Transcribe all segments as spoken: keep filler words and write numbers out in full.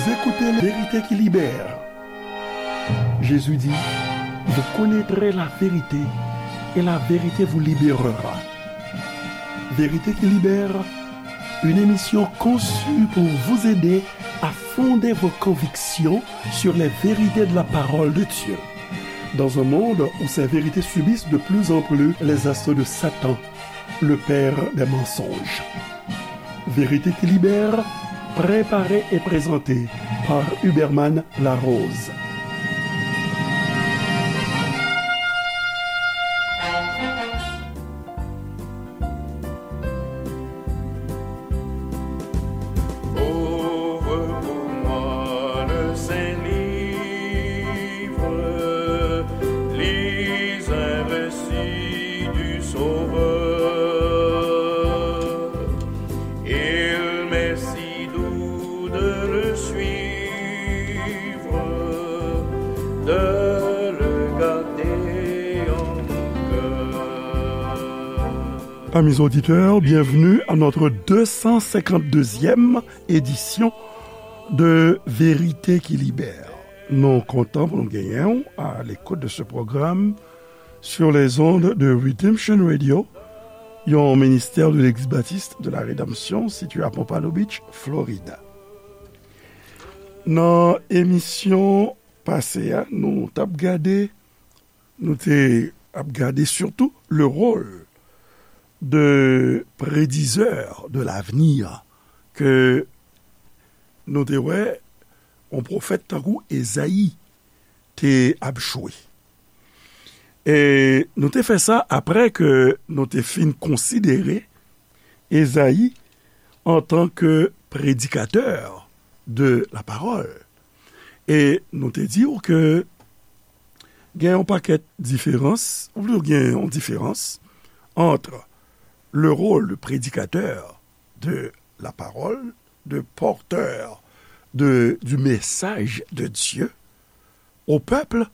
Écoutez la vérité qui libère. Jésus dit, vous connaîtrez la vérité et la vérité vous libérera. Vérité qui libère, une émission conçue pour vous aider à fonder vos convictions sur les vérités de la parole de Dieu. Dans un monde où ces vérités subissent de plus en plus les assauts de Satan, le père des mensonges. Vérité qui libère, préparée et présentée par Huberman Larose. Ouvre pour moi le saint livre, lis un récit du Sauveur. Il m'est si doux de le suivre, de le garder en mon cœur. Amis auditeurs, bienvenue à notre deux cent cinquante-deuxième édition de Vérité qui Libère. Nou kontan pou nou genyen w à l'écoute de ce programme sur les ondes de Redemption Radio, yon ministère de l'Église baptiste de la Rédemption situé à Pompano Beach, Florida. Nan emisyon pase a, nou t ap gade, nou te ap gade surtout le rôle de prédiseur de l'avenir ke nou te wè yon pwofèt tankou Ezayi te ap jwe. E nou te fè sa apre ke nou te fin konsidere Ezayi antanke prédicateur de la parole. E nou te di w ke gen yon pakèt diferans, ou plito gen yon diferans entre le rôle de prédicateur de la parole, de porteur de, du message de Dieu au peuple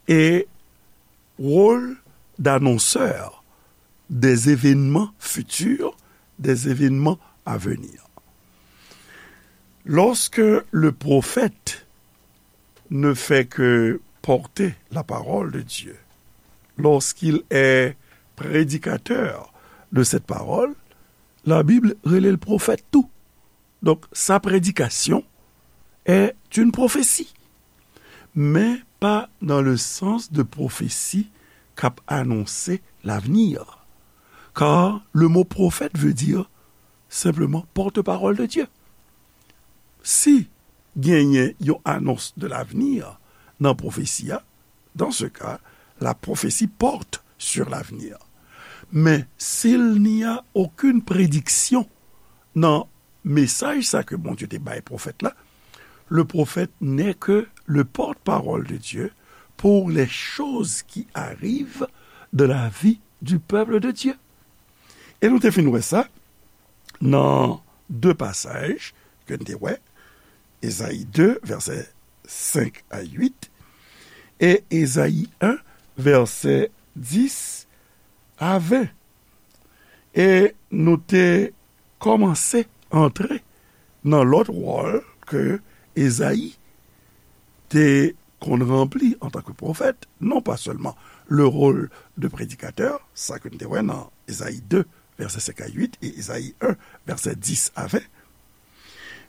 et rôle d'annonceur des événements futurs, des événements à venir. Lorsque le prophète ne fait que porter la parole de Dieu, lorsqu'il est prédicateur de cette parole, la Bible rele l pwofèt tou. Donk, sa prédication est une prophétie, mais pas dans le sens de prophétie k ap anonse l'avenir. Car le mot prophète veut dire simplement porte-parole de Dieu. Si genyen yon annonce de l'avenir nan pwofesi a, dans ce cas, la prophétie porte sur l'avenir. Mais s'il n'y a aucune prédiction nan mesaj sa ke Bondye te bay pwofèt la, le prophète n'est que le porte-parole de Dieu pour les choses qui arrivent dans la vie du peuple de Dieu. E nou te fin wè sa nan de pasaj ke n te wè, Ezayi de, vèsè senk a uit, e Ezayi en, vèsè dis a ven. E nou te kòmanse antre nan lòt wòl ke Ezayi te konn ranpli antanke pwofèt, non pa sèlman le rôle de prédicateur, sa ke n te wè nan Ezayi de, vèsè senk a uit, e Ezayi en, vèsè dis a ven,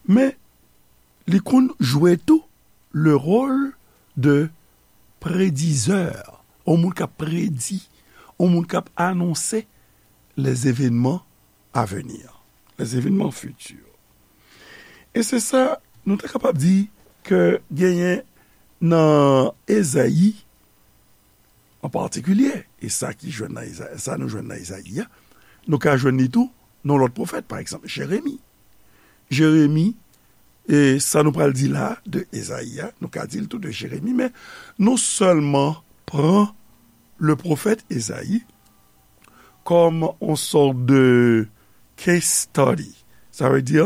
men li konn jwe tou le rôle de prédiseur, yon moun k ap predi, yon moun k ap anonse les événements à venir, les événements futurs. E se sa, nou ta kapab di ke genyen nan Ezayi, an patikilye, e sa ki jwenn nan Eza-, sa nou jwenn nan Ezayi a, nou ka jwenn li tou nan lòt pwofèt, pa egzanp, Jeremi. Jeremi, e sa nou pral di la de Ezayi a, nou ka di l tou de Jeremi, men nou sèlman pran le pwofèt Ezayi kòm on sòt de case study. Sa vle di,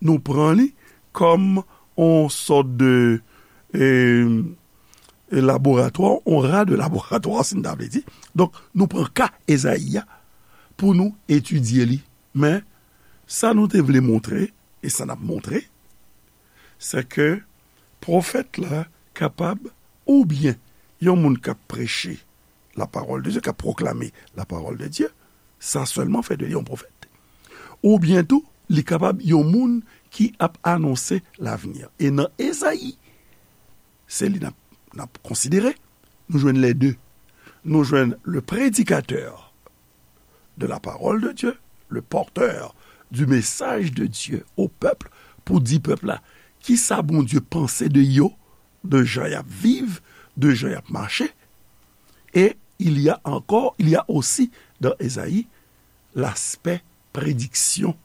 nou pran li kòm on sòt de, e, e laboratwa, on ra de laboratwa, si n ta vle di. Donk, nou pran ka Ezayi a pou nou etidye li. Men, sa nou te vle montre, e sa n ap montre, se ke Pwofèt la kapab, oubyen yon moun k ap preche la parole de Dieu, k ap pwoklame la parole de Dieu, sa sèlman fè de li yon pwofèt. Oubyen tou, li kapab yon moun ki ap anonse lavni. E nan Ezayi, se li n ap, n ap konsidere, nou jwenn les deux. Nou jwenn le prédicateur de la parole de Dieu, le porteur du message de Dieu au peuple, pou di pèp la kisa Bondye panse de yo, de jan y ap viv, de jan y ap mache. Et il y a encore, il y a aussi dans Ezayi l'aspect prédiction,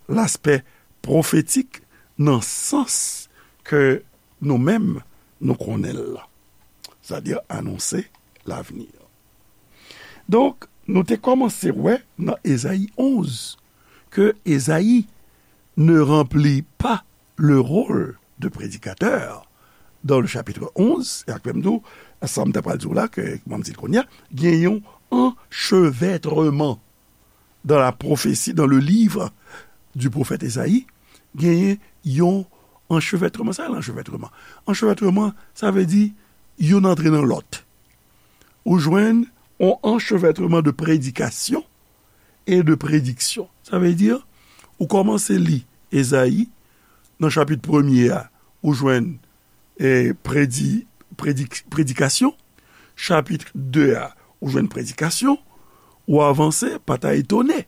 l'aspect prophétique nan sans ke nou menm nou konnen l la. Sètadi anonse lavni. Donk, nou te kòmanse wè nan Ezayi onz ke Ezayi ne remplit pas le rôle de prédicateur dans le chapitre onze, e ak menm tou, sa m ta pral di w la, ke m di l kounye a, gen yon anchevètreman dans la prophétie, dans le livre du prophète Esaïe, genyen yon anchevètreman. Sa se anchevètreman. Anchevètreman, sa vle di youn antre nan lòt. Ou jwenn yon anchevètreman de prédication et de prédiction. Sa vle di, ou kòmanse li Ezayi, nan chapit premye a, ou jwenn e, predi-, predik-, predikasyon. Chapit de a, ou jwenn predikasyon, ou avanse, pa ta etone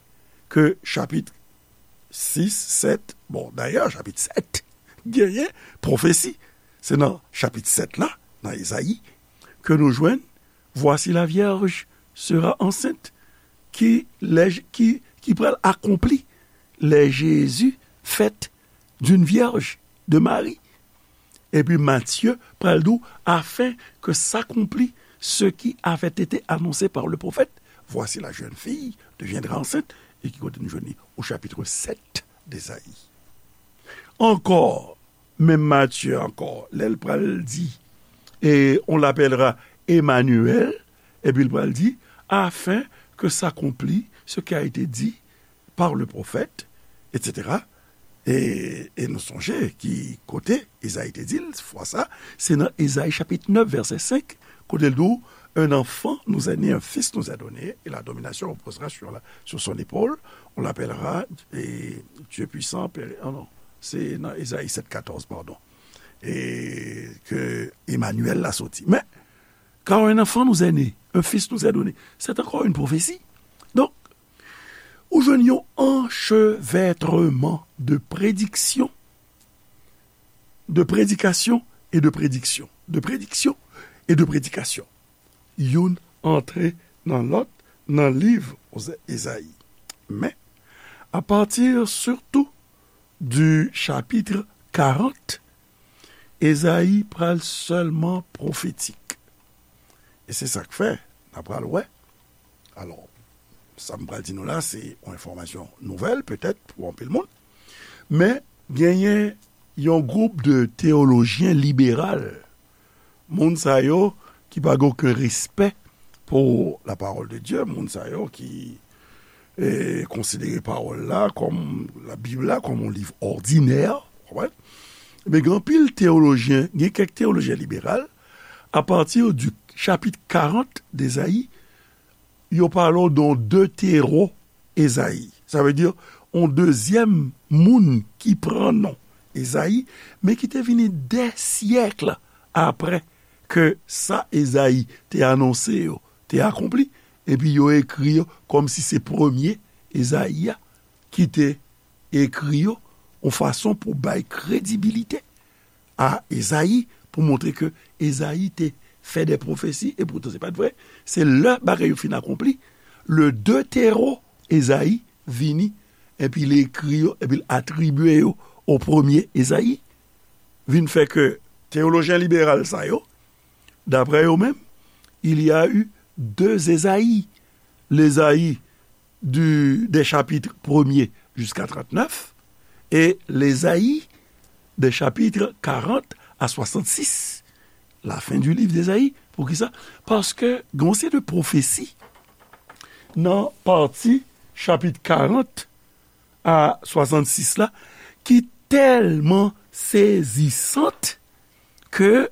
ke chapit sis, sèt, bon, dayè, chapit sèt, genyen pwofesi. Se nan chapit sèt la, nan Ezayi, ke nou jwenn, Voici la vierge sera enceinte, ki, lè, ki, ki pral akonpli, lè Jezi fèt d'une vierge, de Mari. Epi Matye pral di w, afin que s'accomplit ce qui avait été annoncé par le prophète, voici la jeune fille deviendra enceinte, e ki kote nou jwenn li? Au chapitre sept d'Esaïe. Ankò, menm Matye ankò, lè l pral di, et on l'appellera Emmanuel, epi l pral di, afin que s'accomplit ce qui a été dit par le prophète, et cetera. E, e nou sonje ki kote Ezayi te di l, fwa sa, se nan Ezayi chapit nèf, vèsè senk, kote l di w, un enfant nous est né, un fils nous est donné, et la domination reposera sur la, sur son épaule, on l'appellera, e, Dieu puissant, Père, oh non, se nan Ezayi sèt katòz, padon, e ke Emmanuel la soti. Men, car un enfant nous est né, un fils nous est donné. C'est encore une prophétie. Donk, ou jwenn yon anchevètreman de prediksyon, de predikasyon e de prediksyon, de prediksyon e de predikasyon. Youn antre nan lòt nan liv Oze-, Ezayi. Men, à partir surtout du chapitre quarante, Ezayi pral sèlman pwofetik. E se sa k fè, n a pral wè. Alò, sa m pral di nou la, se yon enfòmasyon nouvèl, petèt, pou anpil moun. Men, genyen yon gwoup de teyolojyen liberal, moun sa yo ki pa gen okenn respè pou la parole de Dieu, moun sa yo ki, e, konsidere pawòl la kòm, la Bib la kòm yon liv òdinè, w konprann? Men gen anpil teyolojyen, gen kèk teyolojyen liberal, à partir du chapitre quarante d'Esaïe, yo pale w de yon deutéro-Esaïe. Sa vle di, yon dezyèm moun ki pran non Ezayi, men ki te vini dè syèk apre ke sa Ezayi te anonse yo te akonpli, epi yo ekri yo kòmsi se premye Ezayi a ki te ekri yo, yon fason pou bay kredibilite a Ezayi, pou montre ke Ezayi te fè de pwofesi, e poutan se pa t vre. Se lè bagay yo fin akonpli, le deutéro Ezayi vini, epi li ekri yo, epi l atribye yo o premye Ezayi, vin fè ke teyolojyen liberal sa yo, daprè yo menm, il y a eu deux Esaïe, l'Esaïe du, des chapitres premier jusqu'à trente-neuf, et l'Esaïe des chapitres quarante à soixante-six, la fin du livre d'Esaïe. Poukisa? Paske gen yon seri de pwofesi nan pati chapit karant a swasannsis la ki tèlman sezisant ke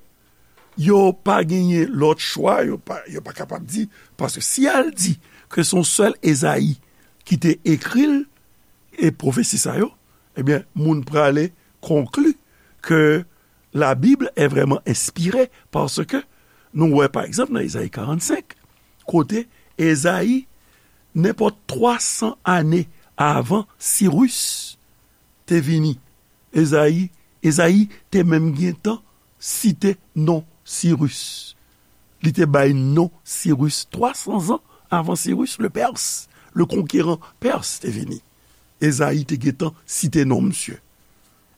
yo pa genyen lòt chwa, yo pa, yo pa kapab di, paske si y al di ke se yon sèl Ezayi ki te ekri l, e pwofesi sa yo, ebyen, moun prale konkli ke la Bible est vraiment inspirée, paske nou wè, pa egzanp, nan Ezayi karannsenk, kote Ezayi, nenpòt twa san ane avan Siris te vini, Ezayi, Ezayi te menm gentan site non Siris. Li te bay non Siris twa san zan avan Siris le Pers, le konkeran Pers te vini. Ezayi te gentan site non misye.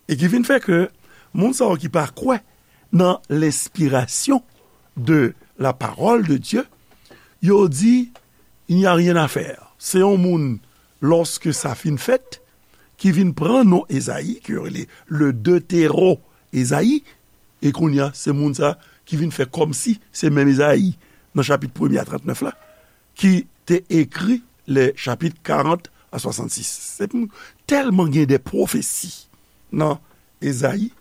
E ki vin fè ke moun sa yo ki pa kwè nan lenspirasyon de la parole de Dieu, yo di, il n'y a rien à faire. Se yon moun, lòske sa fin fèt, ki vin pran non Ezayi, ke yo rele le Deutéro Ezayi, e kounye a, se moun sa ki vin fè kòmsi se menm Ezayi, nan chapit premye a trantnèf la, ki te ekri le chapit karant a swasannsis. Se pou tèlman gen de pwofesi nan Ezayi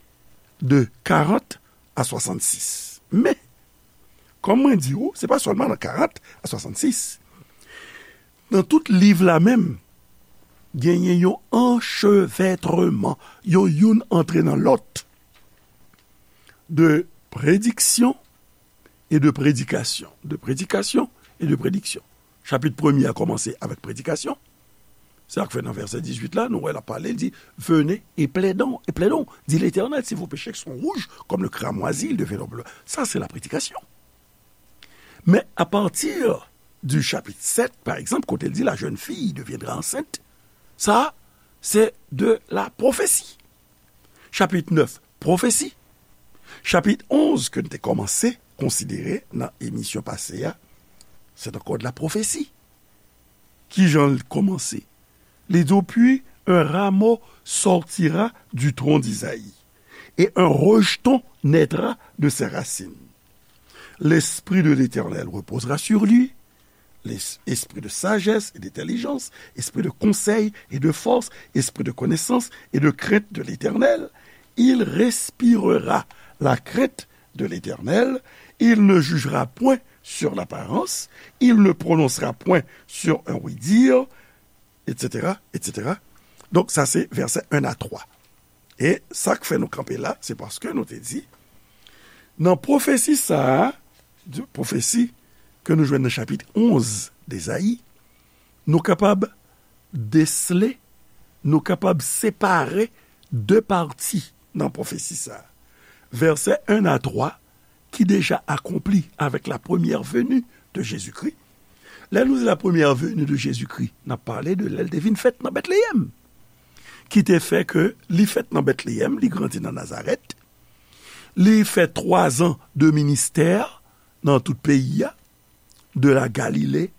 de karant a swasannsis. Men, kòm mwen di w, se pa sèlman nan karant a swasannsis. Nan tout liv la menm, genyen yon anchevètreman, yon youn antre nan lòt, de prediksyon e de predikasyon. De predikasyon e de prediksyon. Chapit premye a kòmanse avèk predikasyon. Se sa k fè nan vèsè dizuit la, nou wè l ap pale, l di, venez et plaidons, et plaidons, dit l'Éternel, si vos péchés sont rouges comme le cramoisi, ils deviendront bleus. Sa se la predikasyon. Men apati di chapit sèt, pa egzanp, kote l di, la jeune fille deviendra enceinte, sa se de la pwofesi. Chapit nèf, pwofesi. Chapit onz, ke n te kòmanse konsidere nan emisyon pase a, se ankò de la pwofesi. Ki jan l kòmanse? Li di w, puis un rameau sortira du tronc d'Isaïe, et un rejeton naîtra de ses racines. L'esprit de l'Éternel reposera sur lui, l'esprit de sagesse et d'intelligence, esprit de conseil et de force, esprit de connaissance et de crainte de l'Éternel. Il respirera la crainte de l'Éternel. Il ne jugera point sur l'apparence. Il ne prononcera point sur un oui-dire, et cetera, et cetera. Donk, sa se vèsè en a twa. E sa k fè nou kanpe la, se paske nou te di, nan pwofesi sa a, di- pwofesi ke nou jwenn nan chapit onz d'Ezayi, nou kapab desle, nou kapab separe de pati nan pwofesi sa a. Vèsè en a twa, ki deja akonpli avèk la première venue de Jésus-Christ. Lè nou di la première venue de Jésus-Christ, n ap pale de lè l te vin fèt nan Betleyèm, ki te fè ke li fèt nan Betleyèm, li grandi nan Nazarèt, li fè twa zan de ministè nan tout peyi a, de la Galilée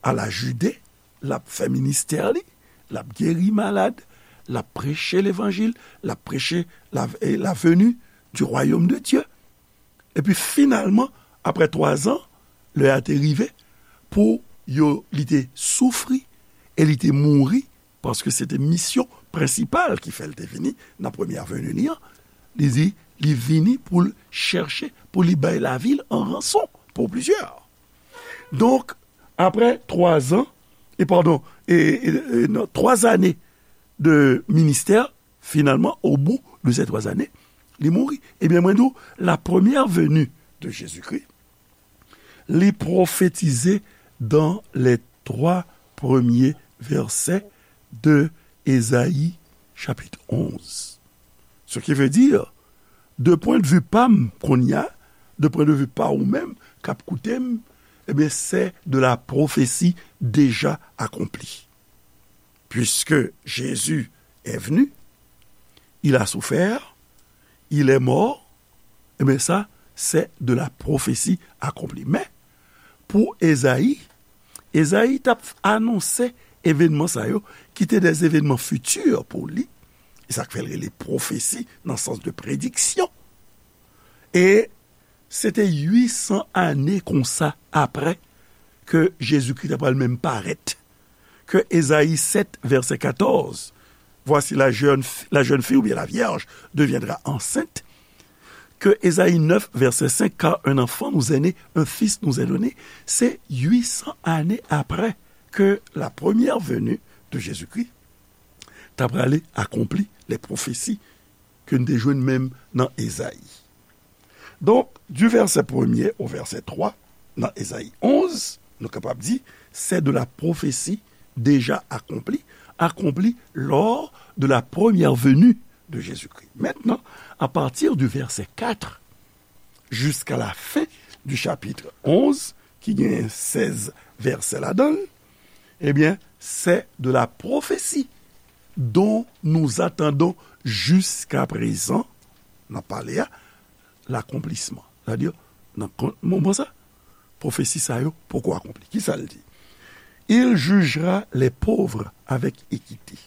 à la Judée, l ap fè ministè li, l ap geri malad, l ap preche levanjil, l ap preche la, eh, la venue du royaume de Dieu. Epi finalman, apre twa zan, lè a te rive pou yo, li te soufri e li te mouri, paske se te misyon prensipal ki fè l te vini nan premyè veni li an. Li di, li vini pou l chèche, pou li bay lavi l an ranson pou plizyè. Donk, apre twa zan, e padon, e, e, e, non, twa zane de ministè, finalman, au bout de ces trois années, li mouri. Ebyen, mwen di w, la première venue de Jésus-Christ, li pwofetize dans les trois premiers versets de Ésaïe chapitre onze. Ce qui veut dire, de pwen de vi pa m kounye a, de pwen de vi pa ou menm k ap koute m, ebyen, c'est de la prophétie déjà accomplie. Puisque Jésus est venu, il a souffert, il est mort, ebyen sa, c'est de la prophétie accomplie. Men, pou Ezayi, Ezayi t ap anonse evènman sa yo, ki te des événements futurs pou li, e sa k fè l rele pwofesi nan sans de prediksyon. E se te uit san ane konsa apre ke Jezikri ta pral menm parèt, ke Ezayi sèt, vèsè katòz, voici la jeune, la jeune fille, ou bien la vierge, deviendra enceinte, ke Ezayi nèf, vèsè senk, car un enfant nous est né, un fils nous est donné, se uit san ane apre ke la première venue de Jésus-Christ, ta prale akonpli les prophéties ke n te jwenn menm nan Ezayi. Donk, du verset premier au verset trois, nan Ezayi onz, nou kapab di, c'est de la prophétie déjà accomplie, accomplie lors de la première venue de Jésus-Christ. Maintenant, à partir du verset quatre jusqu'à la fin du chapitre onze, ki gen sèz vèsè ladan l, ebyen, c'est de la prophétie dont nous attendons jusqu'à présent, nan pale a, l'accomplissement. Sètadi, nan kon- moman sa, pwofesi sa yo poko akonpli. Kisa l di? Il jugera les pauvres avec équité.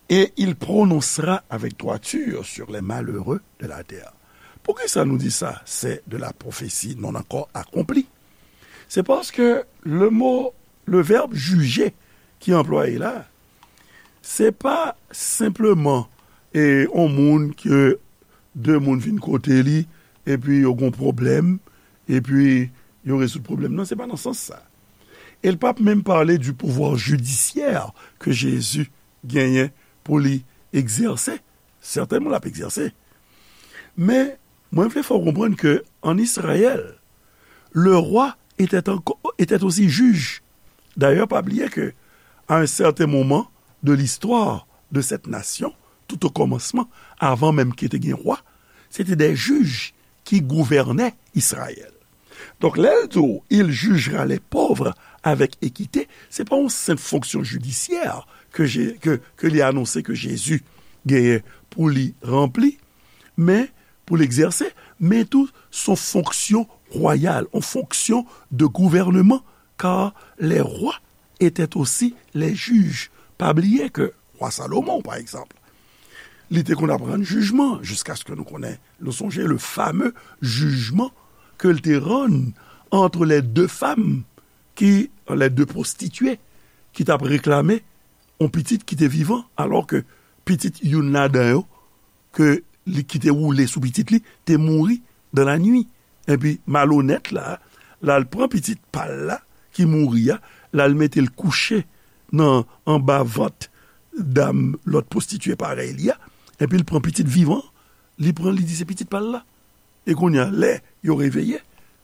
Et il prononcera avec droiture sur les malheureux de la terre. Poukisa nou di sa, c'est de la prophétie non encore accomplie? Se paske le mot, le verbe juger ki anplwaye la, se pa senpleman e, yon moun ke de moun vin kote li, epi yo gon pwoblèm, epi yo rezoud pwoblèm nan. Se pa nan sans sa. E l p ap menm pale du pouvoir judiciaire ke Jezi genyen pou li egzèse. Sètènman, l ap egzèse. Men, mwen vle fè w konprann ke an Israël, le roi était encore, était aussi juge. D'ailleurs, pa bliye ke, à un certain moment de l'histoire de cette nation, tout au commencement, avan menm ke te gen wa, se te des juges ki gouvène Israël. Donk, lè l di w, il jugera les pauvres avec équité, se pa yon senp fonksyon jidisyè ke, ke, ke li anonse ke Jezi genyen pou li ranpli, men pou l egzèse, men tou s on fonksyon wayal, on fonksyon de gouvèneman, car les rois étaient aussi les juges. Pa bliye ke wa Salomon, pa egzanp, li te konn ap rann jijman, jiskaske nou konnen, nou sonje le fameux jugement ke l te rann entre les deux femmes ki, les deux prostituées, ki t ap reklame yon pitit ki te vivan, alò ke pitit youn ladan yo, ke li, ki te woule sou pitit li, te mouri dans la nuit. Epi malonèt la, l al pran pitit pa l la, ki mouri a, l al mete l kouche nan, anba vant dam lòt pwostitye parèy li a, epi l pran pitit vivan, li pran, li di se pitit pa l la. E kounye a, lè yo reveye,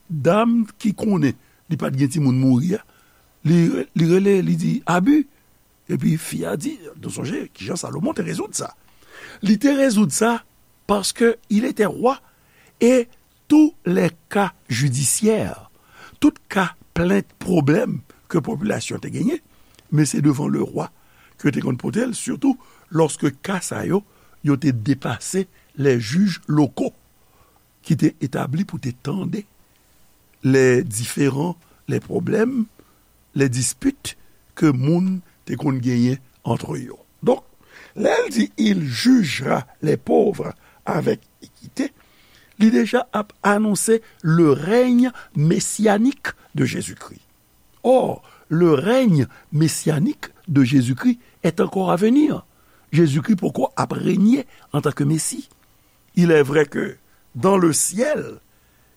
dam ki konnen li pa t gen timoun mouri a, li, li rele, li di, abi. Epi fi a di, nou sonje kijan Salomon te rezoud sa. Li te rezoud sa parce que il était roi et tous les cas judiciaires, tout ka plent, pwoblèm ke popilasyon te genyen, men se devan le roi ke te konn pote l, sitou lòske ka sa yo, yo te depase les juges locaux ki te etabli pou te tande les différends, les problèmes, les disputes ke moun te konn genyen antre yo. Donk, lè l di, il jugera les pauvres avec équité, li deja ap anonse le règne messianique de Jésus-Christ. Or, le règne messianique de Jésus-Christ est encore à venir. Jezikri poko ap renye antanke Mesi. Il est vrai que dans le ciel,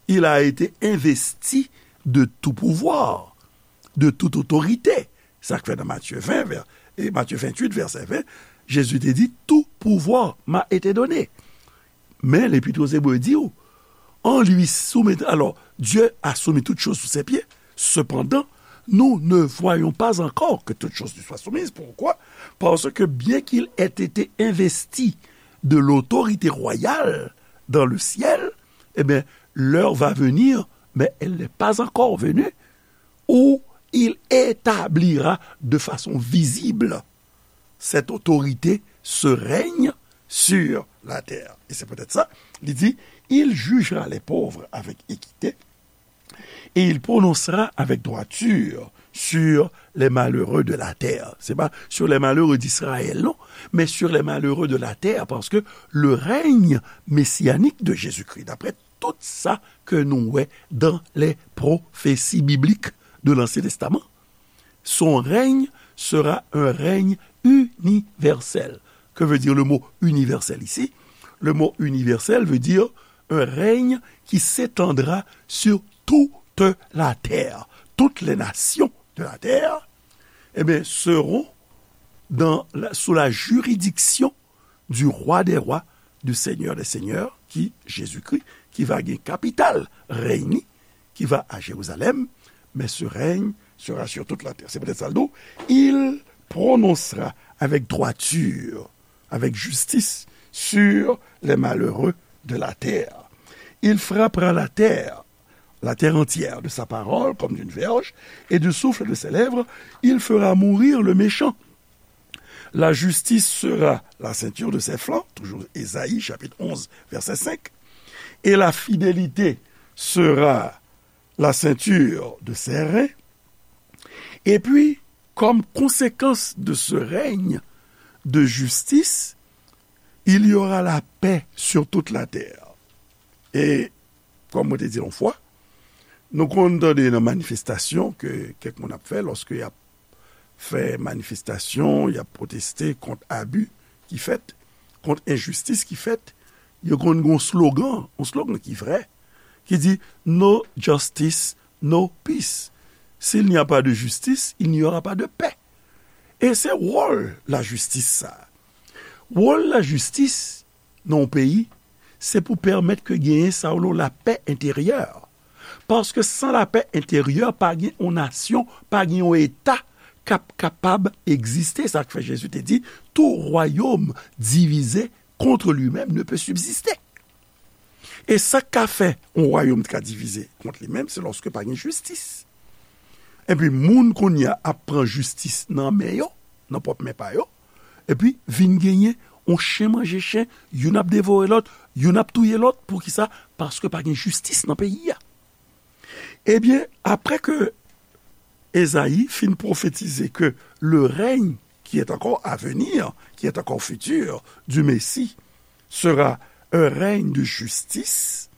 il a été investi de tout pouvoir, de toute autorité. Sa k fè nan Matye ven, vè-, e Matye venntuit, vèsè ven, Jezi te di, tout pouvoir m'a été donné. Men Lepit o Zebre di w, en lui soumettre, alors, Dieu a soumis toutes choses sous ses pieds. Cependant, nous ne voyons pas encore que toutes choses lui soient soumises. Pourquoi? Parce que bien qu'il ait été investi de l'autorité royale dans le ciel, eh bien, l'heure va venir, mais elle n'est pas encore venue, où il établira de façon visible cette autorité, ce règne sur la terre. Et c'est peut-être ça, il dit, il jugera les pauvres avec équité et il prononcera avec droiture sur les malheureux de la terre. C'est pas sur les malheureux d'Israël, non, mais sur les malheureux de la terre, parce que le règne messianique de Jésus-Christ, d'après tout sa ke nou wè dans les prophéties bibliques de l'Ancien Testament, son règne sera un règne universel. Que veut dire le mot universel ici? le mot universel veut dire un règne qui s'étendra sur toute la terre. Toutes les nations de la terre, eh bien, seront dans la- sous la juridiction du roi des rois, du seigneur des seigneurs, qui, Jésus-Christ, qui va gen kapital règne, qui va à Jérusalem, mais ce règne sera sur toute la terre. C'est peut-être ça le dos. Il prononcera avec droiture, avec justice, sur les malheureux de la terre. Il frappera la terre, la terre entière, de sa parole comme d'une verge, et du souffle de ses lèvres, il fera mourir le méchant. La justice sera la ceinture de ses flancs, toujours Ésaïe chapitre onze, verset cinq, et la fidélité sera la ceinture de ses reins. Et puis, comme conséquence de ce règne de justice, il y aura la paix sur toute la terre. E, kòm mwen te di yon fwa, nou konn tande nan manifestasyon ke kèk moun ap fè, lòske y ap fè manifestasyon, y ap pwoteste kont abi ki fèt, kont enjistis ki fèt, yo konn gen yon slogan, yon slogan ki vrè, ki di: "No justice, no peace." S'il n'y a pas de justice, il n'y aura pas de paix. E se wòl lajistis sa. Wòl lajistis nan yon peyi, se pou pèmèt ke genyen sa yo rele lapè enteryè. Paske san lapè enteryè, pa gen yon nasyon, pa gen yon eta k ap kapab egziste. Sa k fè Jezi te di: "Tout royaume divisé contre lui-même ne peut subsister." E sa k ka fè yon wayòm ka divize kont li menm, se lòske pa gen jistis. Epi moun kounye a ap pran jistis nan men yo, nan pwòp men pa yo, epi vin genyen yon chen manje chen, youn ap devore lòt, youn ap touye lòt. Poukisa? Paske pa gen jistis nan peyi a. Ebyen, apre ke Ezayi fin pwofetize ke le règne qui est encore à venir, qui est encore futur, du Messie, sera un règne de justice,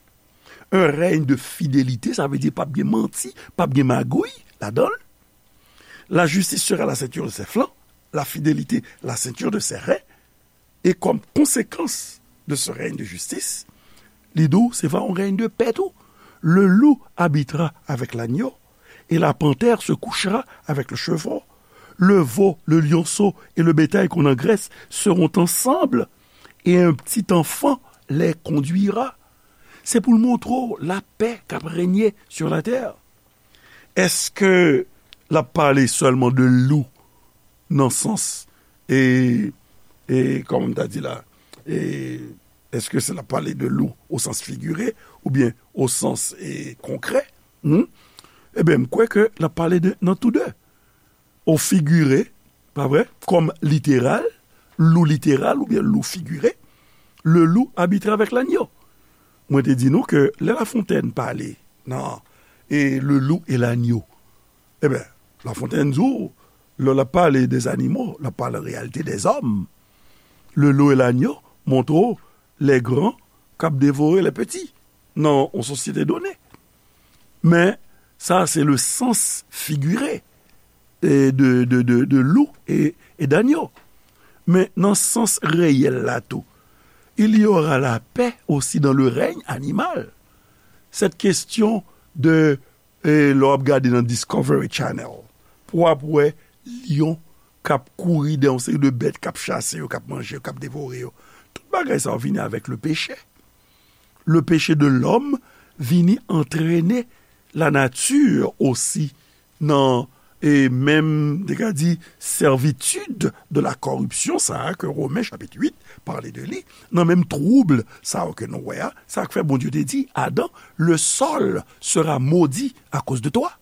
un règne de fidélité, sa vle di p ap gen manti, p ap gen magouy ladan l. La justice sera la ceinture de ses flancs, la fidélité la ceinture de ses reins, et comme conséquence de ce règne de justice, li di w se va yon règne de paix tou. Le loup habitera avec l'agneau, et la panthère se couchera avec le chevreau. Le veau, le lionceau et le bétail qu'on engraisse seront ensemble, et un petit enfant les conduira. Se pou l montre w lapè k ap renye sur la terre. Èske l ap pale sèlman de lou nan sans, e, e, kòman m ta di la, e, èske se l ap pale de lou o sans figire oubyen o sans, e, konkrè? Hmm? Ebyen, m kwè ke l ap pale de, nan tou de. O figire, pa vre? Kòm literal, lou literal oubyen lou figire, le loup habitera avec l'agneau. Mwen te di nou ke lè Lafontèn pale nan, e, le loup et l'agneau, ebyen, Lafontèn di w, lè l ap pale de zanimo, l ap pale an reyalite de zòm. Le loup et l'agneau montre w les grands k ap devore les petits nan yon sosyete done. Men, sa se le sans figire, e, de, de, de, de loup et, et d'agneau. Men nan sans reyèl la tou, il y aura la paix aussi dans le règne animal. Cette question de, e, lè w ap gade nan Discovery Channel, pou w ap wè lyon k ap kouri dèyè yon seri de bèt k ap chase yo, k ap manje yo, k ap devore yo. Tout bagay sa yo vini avèk le péché. Le péché de l'homme vini antrene lanati osi nan, e, menm, te ka di, servitude de la corruption sa a ke Women chapit uit pale de li, nan menm twoub sa a ke nou wè a, sa k fè Bondye te di Adan: "Le sol sera maudit à cause de toi."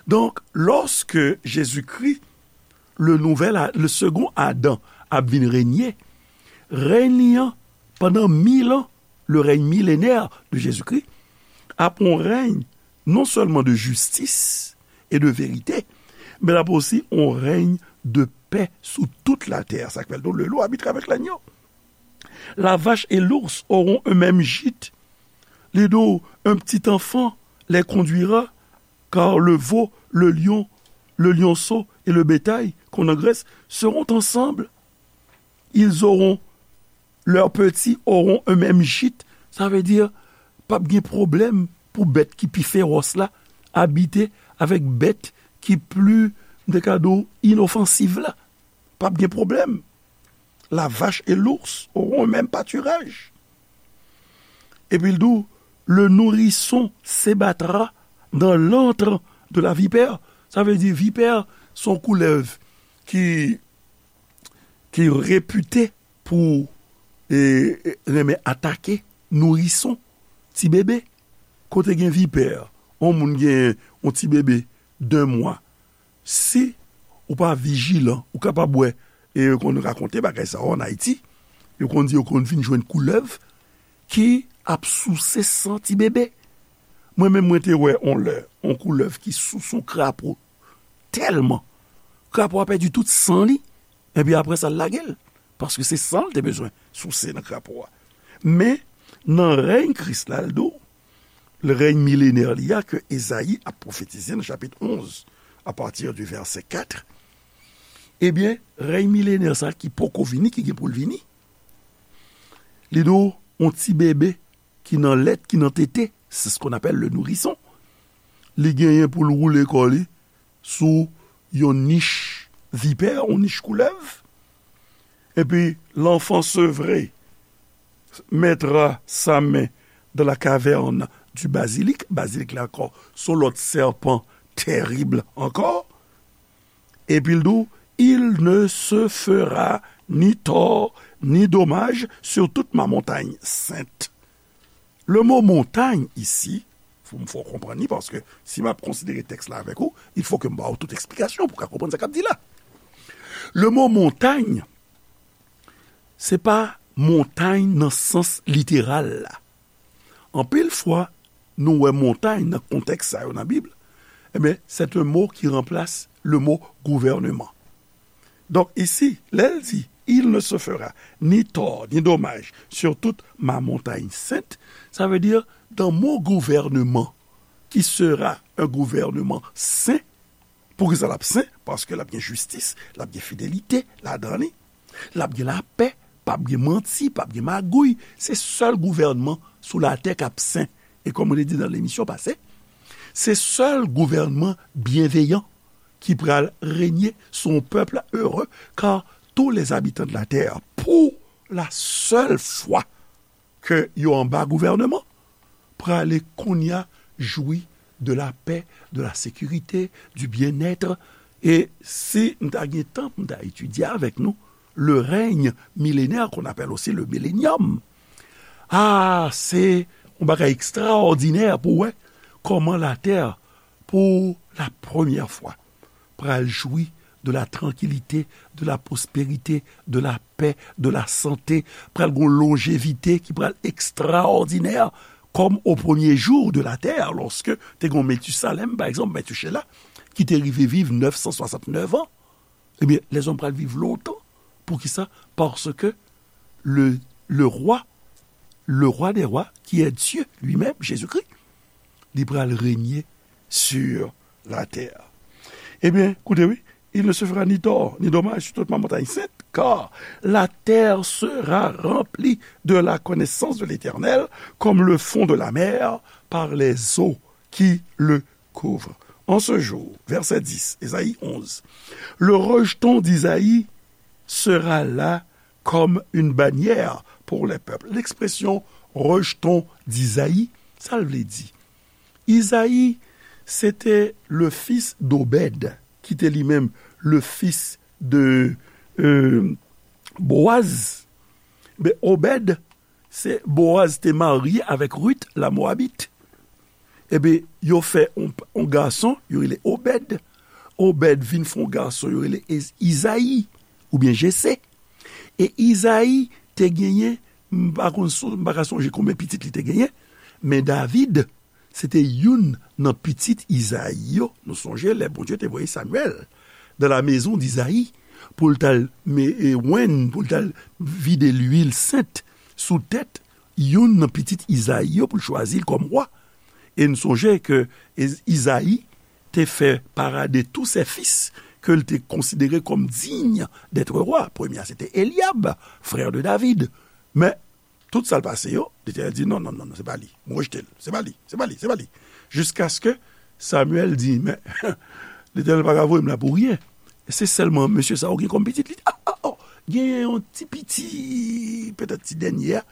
Donk, lòske Jezikri, le nouvel A-, le second Adam, ap vin renye, rèy li an, pandan mil an, le règne millénaire de Jésus-Christ, ap yon règne non seulement de justice et de vérité, men l ap osi yon règne de paix sous toute la terre. Sa k fè l di w, le loup habitera avec l'agneau. La vache et l'ours auront un même gîte. Li di w, un petit enfant les conduira, car le veau, le lion, le lionceau et le bétail qu'on engraisse seront ensemble. Ils auront Leurs petits auront eux-mêmes gîte. Sa vle di, p ap gen pwoblèm pou bèt ki pi fewòs la abite avèk bèt ki pli, m te ka di w, inofansiv la. P ap gen pwoblèm. La vache et l'ours auront un même pâturage. Epi l di w, le nourrisson s'ébattra dans l'antre de la vipère. Sa vle di, vipè se yon koulèv ki, ki repite pou e, e, renmen atake nourison, ti bebe. Kote gen vipè, yon moun gen yon ti bebe de mwa, si ou pa vijilan, ou kapab wè, e yo konn rakonte bagay sa yo ann Ayiti, yo konn di yo konn vin jwenn koulèv ki ap souse san ti bebe. Mwen menm, mwen te wè yon lè, yon koulèv ki souse yon krapo tèlman, krapo a pèdi tout san li, epi apre sa, l lage l, paske se san l te bezwen souse nan krapo a. Men, nan rèy Kris la, l di w, rèy milenè li a ke Ezayi ap pwofetize nan chapit onz, apati di vèsè kat, ebyen, rèy milenè sa ki poko vini, ki gen pou l vini, li di w, yon ti bebe ki nan lèt, ki nan tete, c'est ce qu'on appelle le nourrisson. Li genyen pou l woule kò li sou yon nich vipè, yon nich koulèv. Epi, l'enfant sevré mettra sa main dans la caverne du basilic. Bazilik la ankò, se yon lòt sèpan terib ankò. Epi l di w, il ne se fera ni tort ni dommage sur toute ma montagne sainte. Le mot montagne ici, fò m fè w konprann li, paske si m ap konsidere tèks la avèk ou, il faut que m ba w tout eksplikasyon pou w ka konprann sa k ap di la. Le mot montagne, se pa montay nan sans literal la. Anpil fwa, nou wè montay nan kontèks sa yo nan Bib, ebyen, c'est un mot qui remplace le mot gouvernement. Donk, isi, lè l di, il ne se fera ni tort ni dommage sur toute ma montagne sainte, sa vle di, dans mon gouvernement, qui sera un gouvernement saint, poukisa l ap sen? Paske l ap gen jistis, l ap gen fidelite ladan li. L ap gen lapè, p ap gen manti, p ap gen magouy. Se sèl gouvènman sou latè k ap sen. E kòm mwen te di nan lemisyon pase, se sèl gouvènman byenveyan ki pral renye sou yon pèp ere, kar tous les habitants de la terre, pour la seule fois, ke yo anba gouvènman, prale kounye a jwi de la paix, de la sécurité, du bien-être. E si m ta gen tan pou m ta etidye avèk nou, le règne millénaire, qu'on appelle aussi le millénium, ah, se yon bagay ekstraòdinè pou wè kòman latè, pou la premyè fwa, pral jwi de la tranquillité, de la prospérité, de la paix, de la santé, pral gon lonjevite ki pral ekstraòdinè, comme au premier jour de la terre, lorsque te gon Metusalem, pa egzanp, Metuchela, ki te rive viv nèf san swasantnèf an. Ebyen, lèzòm pral viv lontan. Poukisa? Paske le, le roi, le roi des rois, qui est Dieu lui-même, Jésus-Christ, li pral renye sur la terre. Ebyen, koute wi, il ne se fera ni tort ni dommage sur toute ma montagne sainte, car la terre sera remplie de la connaissance de l'Éternel, comme le fond de la mer par les eaux qui le couvrent. En ce jour, verset dix, Ésaïe onze, le rejeton d'Isaïe sera là comme une bannière pour les peuples. L'expression rejeton d'Isaïe, sa l vle di? Izayi, se te le fils d'Obed, ki te li menm le fils de, euh, Boaz. Men Obed, se Boaz te marye avèk Ruth, la Moabit. Ebyen, yo fè yon, yon gason, yo rele Obed. Obed vin fè yon gason, yo rele Ez-, Izayi, oubyen Jese. E Izayi te genyen, m pa konn son-, m pa ka sonje konbyen pitit li te genyen, men David, se te youn nan pitit Izayi yo. Nou sonje lè Bondye te voye Samyèl dans la maison d'Isaïe pou l t al me-, e, wenn, pou l t al vide lwil sent sou tèt youn nan pitit Izayi yo pou l chwazi l kòm wa. E n sonje ke Iz-, Izayi te fè parade tous ses fils que l te considéré comme digne d'être roi. Premye a, se te Elyab, frè de David. Men, tout sa l pase yo, Letènèl di, "Non, non, non, non, se pa li. M rejte l. Se pa li, se pa li, se pa li." Jiskaske Samyèl di, "Men, Letènèl pa ka voye m la pou ryen. Se sèlman mesye sa ou gen kòm pitit." Li di, "Ah, ah, oh, genyen yon ti piti, petèt ti dènye a,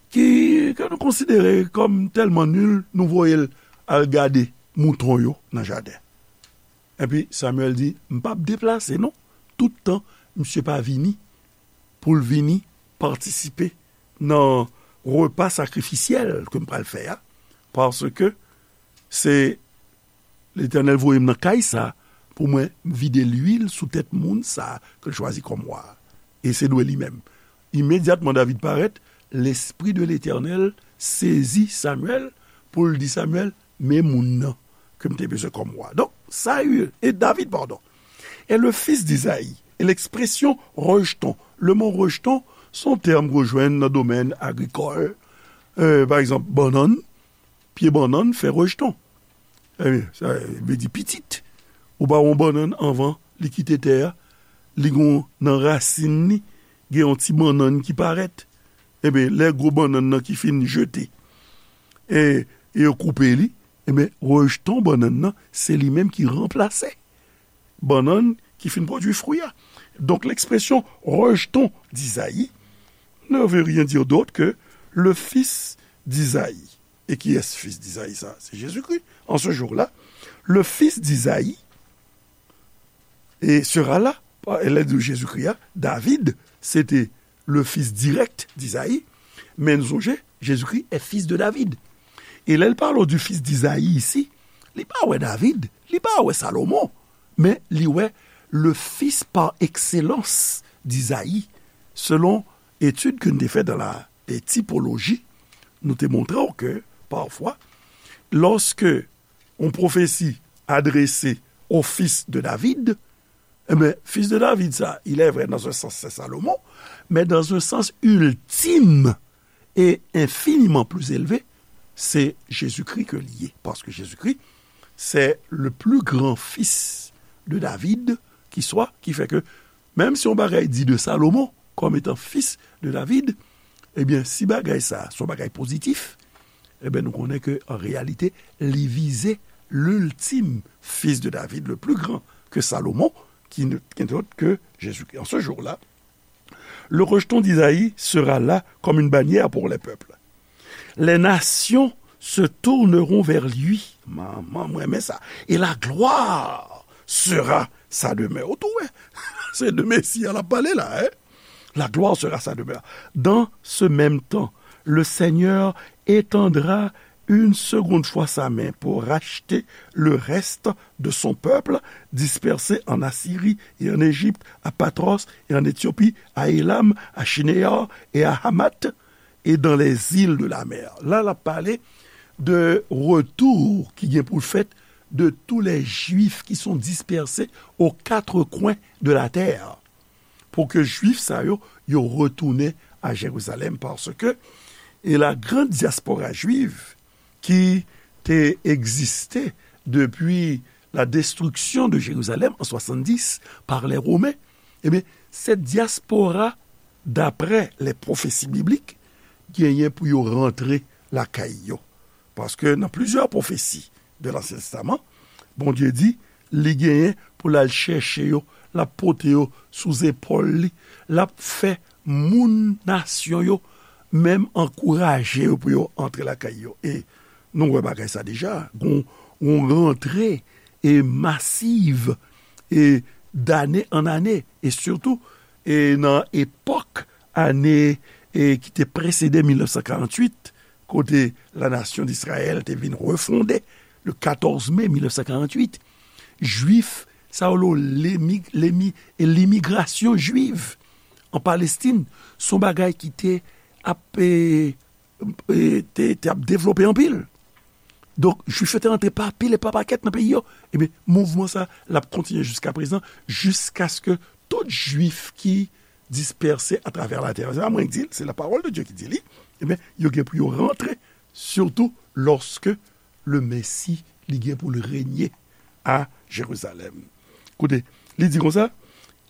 ki, ke nou konsidere kòm tèlman nil, nou voye l al gade mouton yo nan jaden." Epi Samyèl di, "M p ap deplase, non, tout tan misye pa vini pou l vini patisipe nan repa sakrifisyèl ke m pral fè a, paske se Letènèl voye m nan kay sa pou mwen vide lwil sou tèt moun sa ke l chwazi kòm wa a. E se dwe li menm." Imedyatman David parèt, Lespri de Letènèl sezi Samyèl pou l di Samyèl, "Men moun nan ke m te bezwen kòm wa." Donk, Saül, et David, pardon, est le fils d'Isaïe. Et l'expression rejeton, le mot rejeton, se yon tèm ke w jwenn nan domèn agrikòl. Euh, pa egzanp, bannann, pye bannann fè rejeton. Ebyen, sa vle di pitit. Ou ba yon bannann anvan li kite tè a, li gon nan rasin li, gen yon ti bannann ki parèt. Ebyen, lè gwo bannann nan ki fin jete, e, e yo koupe li, ebyen, rejeton bannann nan, se li menm ki ranplase bannann ki fin pwodui fwi a. Donk, l'expression rejeton d'Isaïe ne veut rien dire d'autre que le fils d'Isaïe. Et qui est ce fils d'Isaïe, ça? C'est Jésus-Christ. En ce jour-là, le fils d'Isaïe et sera là. E lè di Jezikri a, David, se te le fils direct d'Isaïe, men nou sonje, Jezikri est fils de David. E lè l pale du fils d'Isaïe isi, li pa wè David, li pa wè Salomon, men li wè le fils par excellence d'Isaïe, selon etid ke n te fè dans la, eh, typologie, nou te montre w ke, pafwa, lòske yon pwofesi adrese au fils de David, eh ben, fils de David, ça, il est vrai, dans un sens, c'est Salomon, mais dans un sens ultime et infiniment plus élevé, c'est Jésus-Christ que li ye. Parce que Jésus-Christ, c'est le plus grand fils de David qui soit, qui fait que, menm si yon bagay di de Salomon comme étant fils de David, ebyen, si bagay sa, se yon bagay pozitif, ebyen, nou konnen ke, an reyalite, li vize l'ultime fils de David, le plus grand que Salomon, qui ne, qui n'est autre que Jésus-Christ. En ce jour-là, le rejeton d'Isaïe sera là comme une bannière pour les peuples. Les nations se tourneront vers lui. Manman, mwen renmen sa. Et la gloire sera sa demeure. Ou tou wè, se de Mesi a l ap pale la, hein? La gloire sera sa demeure. Dans ce même temps, le Seigneur étendra une seconde fois sa main pour racheter le reste de son peuple dispersé en Assyrie et en Égypte, à Pathros et en Éthiopie, à Élam, à Shinéar et à Hamath, et dans les îles de la mer. La, l ap pale de retour ki gen pou l fèt de tous les Juifs qui sont dispersés aux quatre coins de la terre. Pou ke Jwif sa yo, yo retounen a Jerizalèm, paske, e la grande diaspora juive qui te existe depuis la destruction de Jérusalem en soixante-dix par les Romains, ebyen, cette diaspora, d'après les prophéties bibliques, genyen pou yo rantre lakay yo. Paske nan plizyè pwofesi de Lansyen Testaman, Bondye di, li genyen pou l al chèche yo, l ap pote yo sou zepòl li, l ap fè moun nasyon yo menm ankouraje yo pou yo antre lakay yo. E nou wè bagay sa deja, gon, gon rantre e masiv e dane an ane, e sitou e nan epòk ane e ki te presede mil nèf san karanntuit, kote la nation d'Israël te vin refonde le katòz me mil nèf san karanntuit, Jwif sa yo, lemi, lemi, e limigrasyon jwiv an Palestin, se yon bagay ki te ap, e, e, te, te ap devlope anpil. Donk, Jwif yo te rantre pa pil e pa pakèt nan peyi yo. Ebyen, mouvman sa, l ap kontinye jiska prezan, jiskaske tout Jwif ki dispèse atravè latè, se pa mwen ki di l, se la parole de Dieu ki di li, ebyen, yo gen pou yo rantre, sitou lòske le Mesi, li gen pou l renye a Jerizalèm. Koute, li di konsa,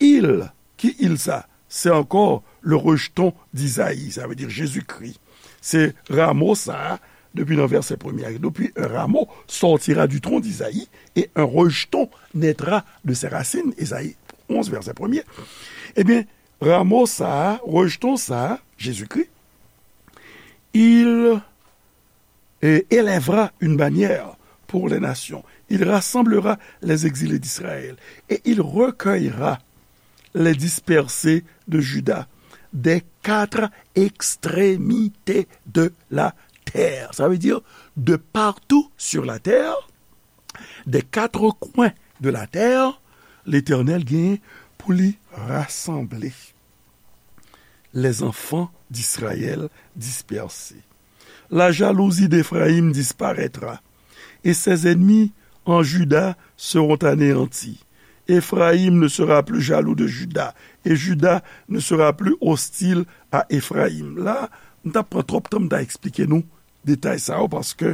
il, ki il sa? c'est encore le rejeton d'Isaïe, ça veut dire Jésus-Christ. Se ramo sa a, depi nan vèsè premye a, depuis un rameau sortira du tronc d'Isaïe, et un rejeton naîtra de ses racines, Ezayi onz, vèsè premye. Ebyen, ramo sa a, rejeton sa a, Jezikri, il euh, élèvera une bannière pour les nations. Il rassemblera les exilés d'Israël et il recueillera les dispersés de Juda des quatre extrémités de la terre. Ça veut dire de partout sur la terre, des quatre coins de la terre, Letènèl gen pou li rasanble les enfants d'Israël dispersés. La jalousie d'Éphraïm disparaîtra, et ses ennemis en Juda seront anéantis. Éphraïm ne sera plus jaloux de Juda, et Juda ne sera plus hostile à Éphraïm. La, m t ap pran twòp tan m ta eksplike nou detay sa yo, paske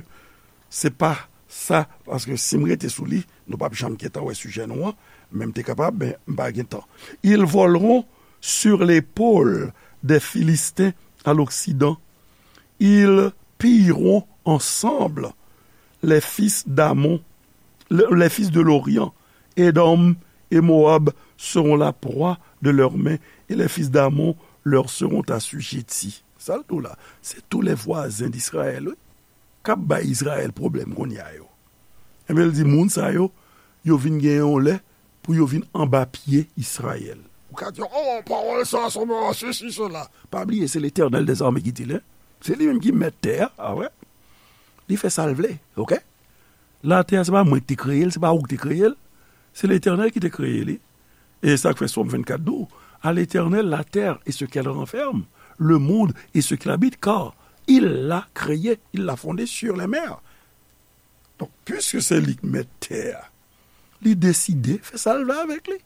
se pa sa, paske si m rete sou li, nou p ap janm gentan wè sijè nou an, men m te kapab, men m pa gen tan. Ils voleront sur l'épaule des Philistins à l'occident. Ils pilleront ensemble les fils d'Amon, le- les fils de l'Orient. Édom et Moab seront la proie de leurs mains, et les fils d'Amon leur seront assujettis. Sa l di w la, se tou lè vwazen d Izrayèl, wi, k ap bay Izrayèl pwoblèm kounye a yo. Ebyen, l di moun sa yo, yo vin gen yon lè pou yo vin anba pye Izrayèl. Ou ka di, oh, pawòl sa, se yon sesi, sela. Pa bliye, se Letènèl dèzame ki di l, en. Se li menm ki mèt tè a, a wè. Li fè sa l vle, oke? Latè a, se pa mwen ki te kreye l, se pa ou ki te kreye l. Se Letènèl ki te kreye li. E sa k fè Sòm vennkat di w, à l'Éternel la terre et ce qu'elle renferme, le monde et ce qu'il habite, car il l'a créé, il l'a fondé sur les mers. Donk, piske se li k mèt tè a, li deside fè sa l vle avèk li.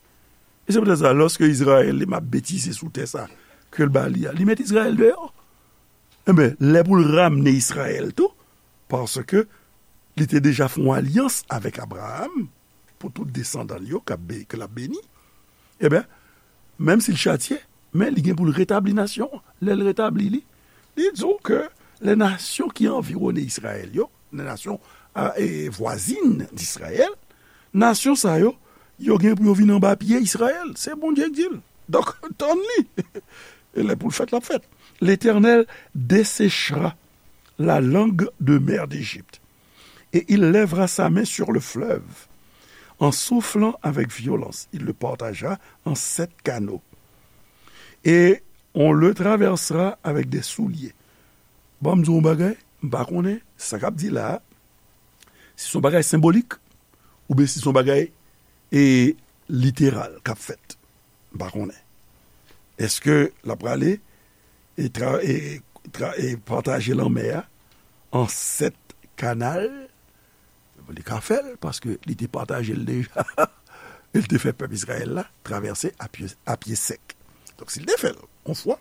E se poutèt sa, lòske Izrayèl li m ap betize sou tè sa ke l ba li a, li met Izrayèl deyò. Enben, lè pou l ramne Izrayèl tou, paske li te deja fè yon alyans avèk Abraram pou tout desandan l yo k ap be- ke l ap beni, enben, menm si l chatye, men li gen pou l retabli nasyon an. Lè l retabli li, li di w ke les nations qui environnent Israël, yo, les nations euh, et voisines d'Israël, nasyon sa yo, yo gen pou yo vin anba pye Izrayèl. Se Bondye k di l. Donk, tann li. E lè pou l fèt, l ap fèt. L'Éternel desséchera la langue de mer d'Égypte, et il lèvera sa main sur le fleuve. En soufflant avec violence, il le partagera en sept canaux. Et on le traversera avec des souliers. Bon, m di w yon bagay, m pa konnen sa k ap di la a, si se yon bagay senbolik, oubyen si se yon bagay e, literal k ap fèt. M pa konnen. Èske l ap prale e, tra, e, tra, e pataje lanmè a an sèt kanal? Li ka fè l, paske li te pataje l deja. E l te fè pèp Izrayèl la travèse a pye, a pye sèk. Donk, si l te fè l yon fwa,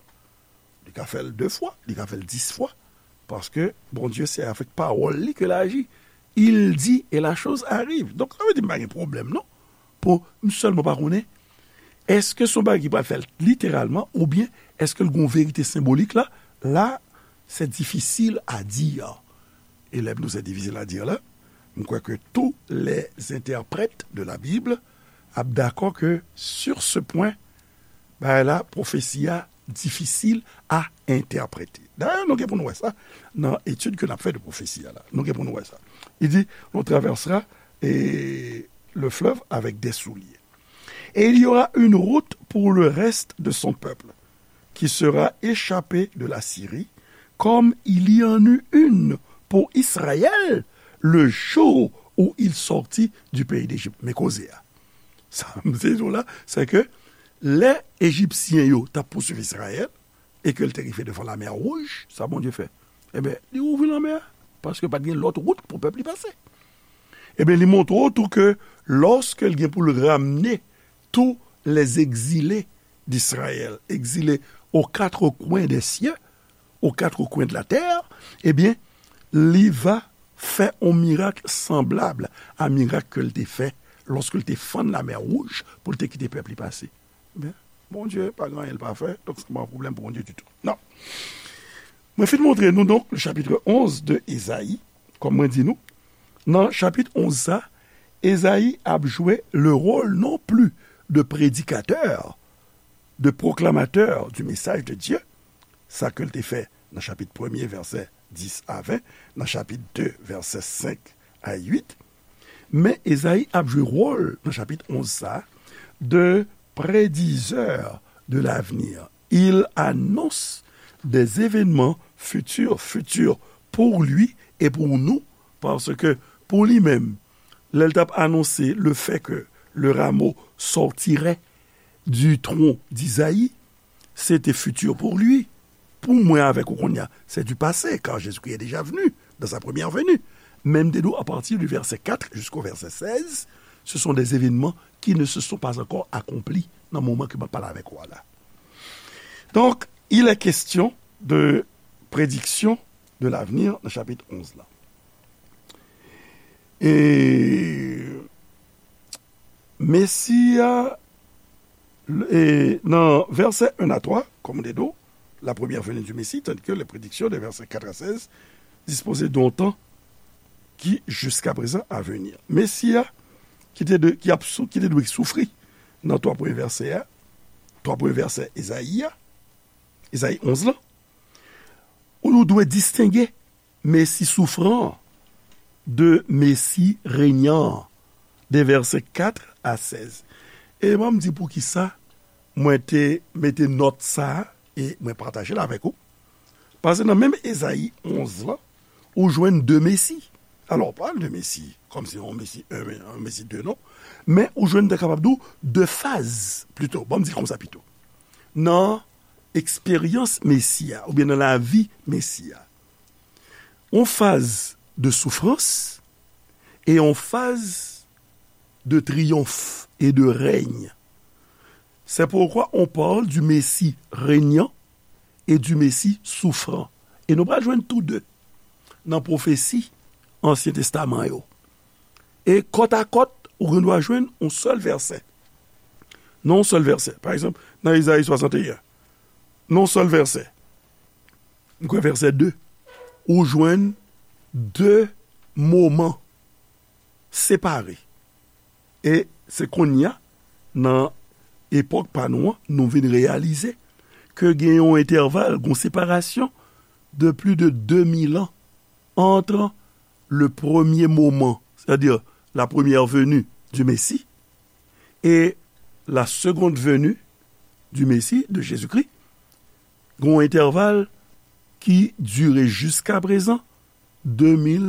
li ka fè l de fwa, li ka fè l dis fwa, paske Bondye se avèk pawòl li ke l aji. Il dit et la chose arrive. Donk, sa vle di m pa gen pwoblèm, non. Pou m sèlman pa konnen, èske se yon bagay ki pral fèt literalman, oubyen èske l gen yon verite senbolik la? La, c'est difficile à dire. E lè m di w c'est difficile à dire la, m kwè ke tous les interprètes de la Bible ap dakò ke sur ce point, bagay la, pwofesi a difisil a entèprete. Dayè, nou gen pou nou wè sa nan etid ke n ap fè de pwofesi a la. Nou gen pou nou wè sa. Li di, on traversera eh, le fleuve avec des souliers. Et il y aura une route pour le reste de son peuple, qui sera échappé de la Syrie, comme il y en eut une pour Israël le jour où il sortit du pays d'Égypte. Men koze a. Sa m se di w la, se ke lè Ejipsyen yo t ap pousuiv Izrayèl, e ke l te rive devan Lamè Wouj, sa Bondye fè? Ebyen, li ouvri lanmè a, paske pa t gen lòt wout pou pèp li pase. Ebyen, li montre w tou ke lòske l gen pou l ramne tous les exilés d'Israël, exilés aux quatre coins des cieux, aux quatre coins de la terre, ebyen, li va fè yon mirak sanblab a mirak ke l te fè lòske l te fann Lamè Wouj pou l te kite pèp li pase. Ebyen, Bondye pa gen anyen l pa fè, donk se pa yon pwoblèm pou Bondye ditou. Non. Mwen fin montre nou, donk, le chapitre onze de Ezayi, kòm mwen di nou, nan chapit onz sa, Ezayi ap jwe le rôle non plus de prédicateur, de proclamateur du message de Dieu, sa ke l te fè nan chapit premye, vèsè dis a ven, nan chapit de, vèsè senk a uit, men Ezayi ap jwe wòl nan chapit onz sa a de prédiseur de l'avenir. Il annonce des événements futurs, futurs pour lui et pour nous, parce que pour lui-même, lè l t ap anonse le fait que le rameau sortirait du tronc d'Isaïe, c'était futur pour lui. Pour mwen avèk ou kounye a, c'est du passé, car Jésus-Christ est déjà venu dans sa première venue. Men m te di w, à partir du verset quatre jusqu'au verset seize, ce sont des événements qui ne se sont pas encore accomplis nan moman ke m ap pale avèk ou a la. Donc, il est question de prédiction de l'avenir nan chapit onz la. E Mesi a, e, nan vèsè un à trois, comme on dit, la première venue du Messie, tandis que les prédictions des versets quatre à seize disposaient d'un temps qui, jusqu'à présent, à venir. Mesi a, ki te, de, ki, ap sou, ki te dwe soufri nan twa premye vèsè a, twa premye vèsè Ezayi a, Ezayi onz la, ou nou dwe distenge Mesi soufran de Mesi renyan, de vèsè kat a sèz. E ban m di poukisa mwen te mete nòt sa a e mwen pataje l avèk ou. Paske nan menm Ezayi onz lan, ou jwenn de Mesi. Alò, pa de Mesi, kòmsi yon Mesi un, yon Mesi de, non. Men ou jwenn, te kapab di w, de faz, pito. Ban m di l konsa pito. Nan eksperyans Mesi a, oubyen nan lavi Mesi a. Yon faz de soufrans e yon faz de triyonf e de rèny. C'est pourquoi on parle du Messie régnant et du Messie souffrant. E nou pral jwenn tou de nan pwofesi Ansyen Testaman yo. E kòt a kòt, ou gen dwa jwenn yon sèl vèsè. Nan yon sèl vèsè. Pa egzanp, nan Ezayi swasannteyen, nan yon sèl vèsè, m kwè vèsè de, ou jwenn de moman separe. E se kounye a, nan epòk pa nou an, nou vin reyalize ke gen yon entèval, gen yon separasyon de plus de deux mille ans entre le premier moment, c'est-à-dire la première venue du Messie, et la seconde venue du Messie, de Jésus-Christ. Gen yon entèval ki dire jiska prezan de mil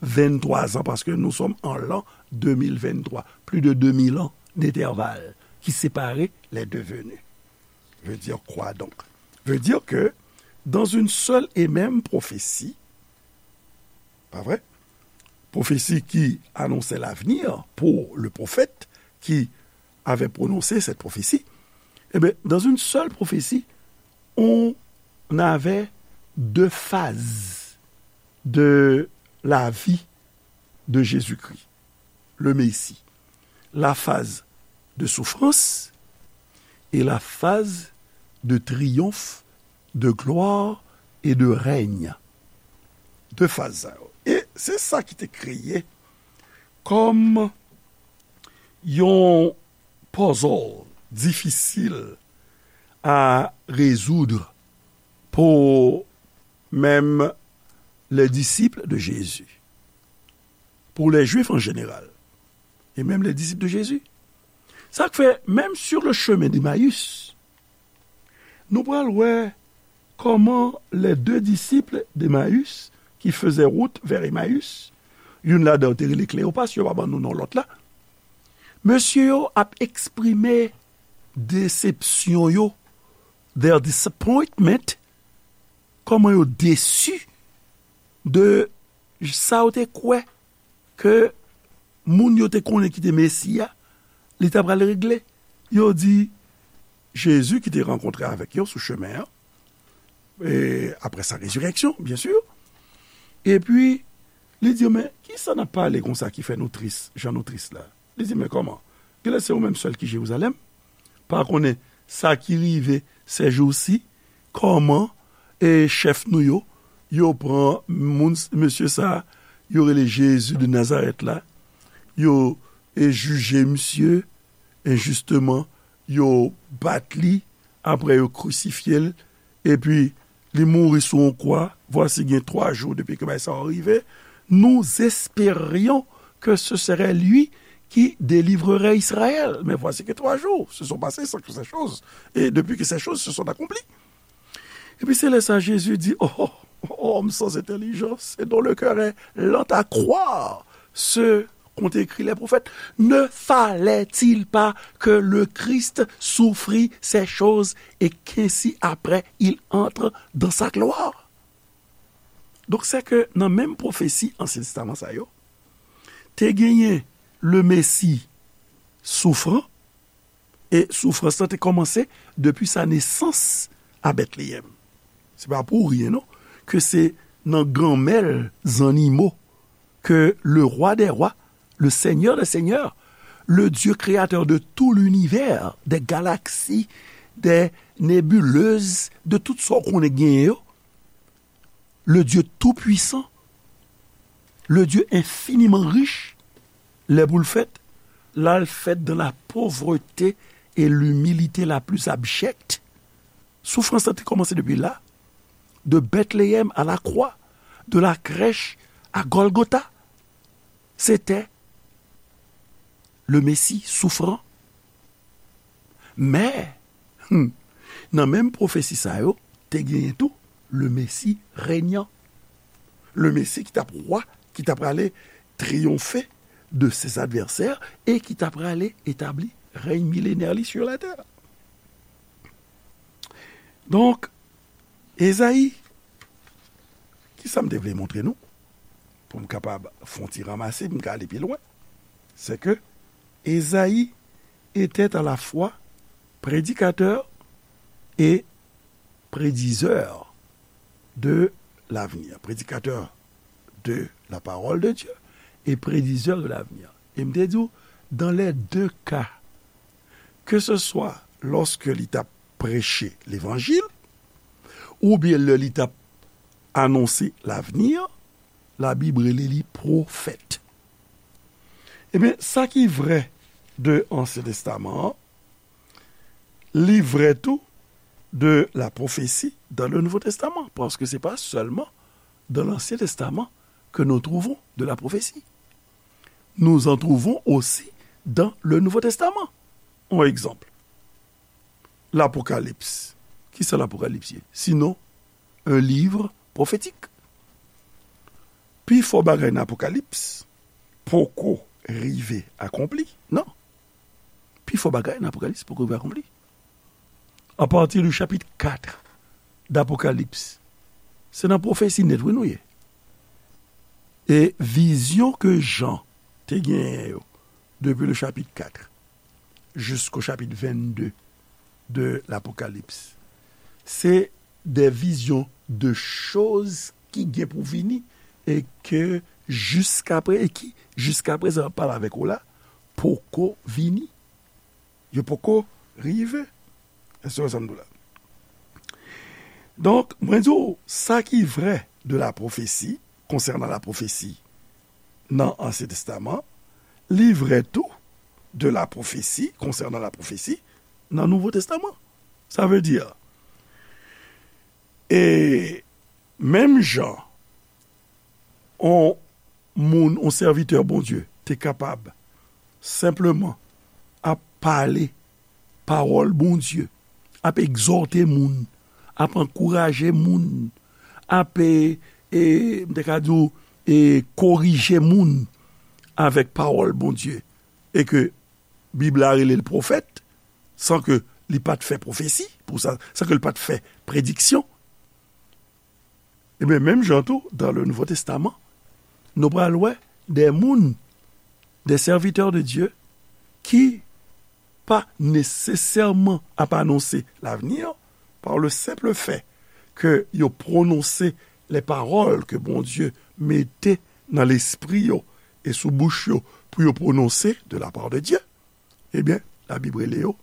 venntwa zan, paske nou sòm an lan de mil venntwa. Plus de deux mille ans d'intervalle qui sépare les deux venues. Veut dire quoi donc? Veut dire que dans une seule et même prophétie, pas vrai? Prophétie qui annonçait l'avenir pour le prophète qui avait prononcé cette prophétie, eh bien, dans une seule prophétie, on avait deux phases de la vie de Jésus-Christ, le Messie. La phase de souffrance et la phase de triomphe, de gloire et de règne. De faz sa yo. E se sa ki te kreye kòm yon puzzle difisil à résoudre pour même les disciples de Jésus, pour les Juifs en général, et même les disciples de Jésus. Sa k fè, menm sur le chemin d'Emmaüs, nou pral wè kòman les deux disciples d'Emmaüs qui faisaient route vers Emmaüs, youn ladan yo te rele Kleyopas, yo pa ban nou non lòt la, mesye yo ap eksprime desepsyon yo, their disappointment, kòman yo desi de sa yo te kwè ke moun yo te konnen ki te Mesi a, li ta pral regle. Yo di, Jezi ki te rankontre avèk yo sou chemen an, e apre sa, rezirèksyon, byen si, epi li di yo, men, kisa n ap pale konsa ki fè nou tris, jan nou tris la? Li di, men kòman? Genlè se ou menm sèl ki Jerizalèm, pa konnen sa ki rive sèjousi, kòman e chèf nou yo, yo pran moun, mesye sa, yo rele Jezi de Nazarèt la, yo e jije misye enjisteman, yo bat li, apre yo krisifye l, epi li mouri sou yon kwa. Voici gen twa jou depi ke bagay sa yo rive. Nous espérions que ce serait lui qui délivrerait Israël. Mais voici que trois jours se sont passés sans que ces choses, et depuis que ces choses se sont accomplies. Epi se lè sa Jezi di, oh, oh, homme sans intelligence et dont le cœur est lent à croire ce qu'ont écrit les prophètes, ne fallait-il pas que le Christ souffrit ces choses et qu'ainsi après il entre dans sa gloire? Donk, se ke nan menm pwofesi Ansyen Testaman sa yo, te genyen le Mesi soufran, e soufrans lan te kòmanse depi sa nesans a Bètleyèm. Se pa pou rien, non, ke se nan ganmèl zannimo que le roi des rois, le Seigneur des seigneurs, le Dieu créateur de tout l'univers, des galaxies, des nébuleuses, de tout sa w konnen genyen yo, le Dieu tout-puissant, le Dieu infiniment riche, lè pou l fèt, l al fèt dans la pauvreté et l'humilité la plus abjecte. Soufrans lan te kòmanse depi la, de Bethléem à la croix, de la crèche à Golgotha. C'était le Messie souffrant. Men, hmm, nan menm pwofesi sa yo, te genyen tou le Messie régnant. Le Messie ki t ap wa, ki t ap prale triyonfe de ses adversaires e ki t ap prale etabli rèy milenè li sur la terre. Donk, Ezayi, ki sa m te vle montre nou, pou m kapab fè yon ti ranmase, pou m ka ale pi lwen, se ke Ezayi était à la fois prédicateur et prédiseur de l'avenir. Prédicateur de la parole de Dieu et prédiseur de l'avenir. E m te di w, dans les deux cas, que ce soit lorsque li t ap preche levanjil, oubyen lè li t ap anonse lavenir, Labib rele li pwofèt. Ebyen, sa ki vrè de Ansyen Testaman an, li vrè tou de la prophétie dans le Nouveau Testament, paske se pa sèlman dans l'Ancien Testament que nous trouvons de la prophétie. Nous en trouvons aussi dans le Nouveau Testament. On egzanp, Lapokalips. Kisa Lapokalips ye? Sinon, un livre prophétique. Pifò bagay nan Apokalips poko rive akonpli, non. Pifò bagay nan Apokalips poko rive akonpli. Apati de chapit kat d'Apokalips, se nan pwofesi nèt, wi, nou ye. E vizyon ke Jan te genyen yo, depi le chapit kat, jusqu'au chapitre vingt-deux de l'Apocalypse, se de vizyon de choz ki gen pou vini e ke jiskaprezan, e ki jiskaprezan ap pale avèk ou la, poko vini. Yo poko rive. Èske w wè sa m di w la? Donk, mwen di w, sa ki vrè de la pwofesi, konsènan la pwofesi nan Ansyen Testaman, li vrè tou de la pwofesi, konsènan la pwofesi nan Nouvo Testaman. Sa vle di, e menm jan on moun, on sèvitè Bondye te kapab senpleman ap pale pawòl Bondye, ap egzòte moun, ap ankouraje moun, ap, e, e, m te ka di w, e, korije moun avèk pawòl Bondye, e ke Bib la rele l pwofèt, san ke li pa t fè pwofesi pou sa, san ke li pa t fè prediksyon. Ebyen, menm jan tou, dans le Nouveau Testament, nou pral wè de moun, des serviteurs de Dieu, ki pa nesesèman ap anonse lavenir, par le simple fait que yo pwononse les paroles que Bondye mete nan lespri yo e sou bouch yo pou yo pwononse de la part de Dieu, ebyen, Labib rele yo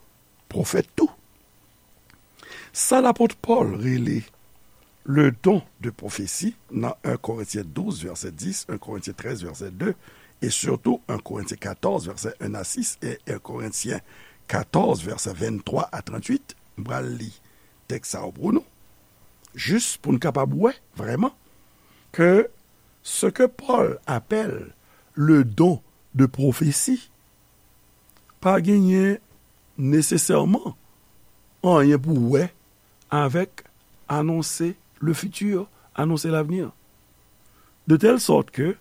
pwofèt tou. Sa lapot Pòl rele le don de pwofesi nan en Korentyen douz vèsè dis, en Korentyen trèz vèsè de, e sitou en Korentyen katòz vèsè en a sis e en Korentyen katòz vèsè venntwa a tranntuit. M pral li tèks sa yo pou nou, jis pou n kapab wè vrèman ke ce que Paul appelle le don de prophétie pa genyen nesesèman anyen pou wè avèk annoncer le futur, annoncer l'avenir. De telle sorte que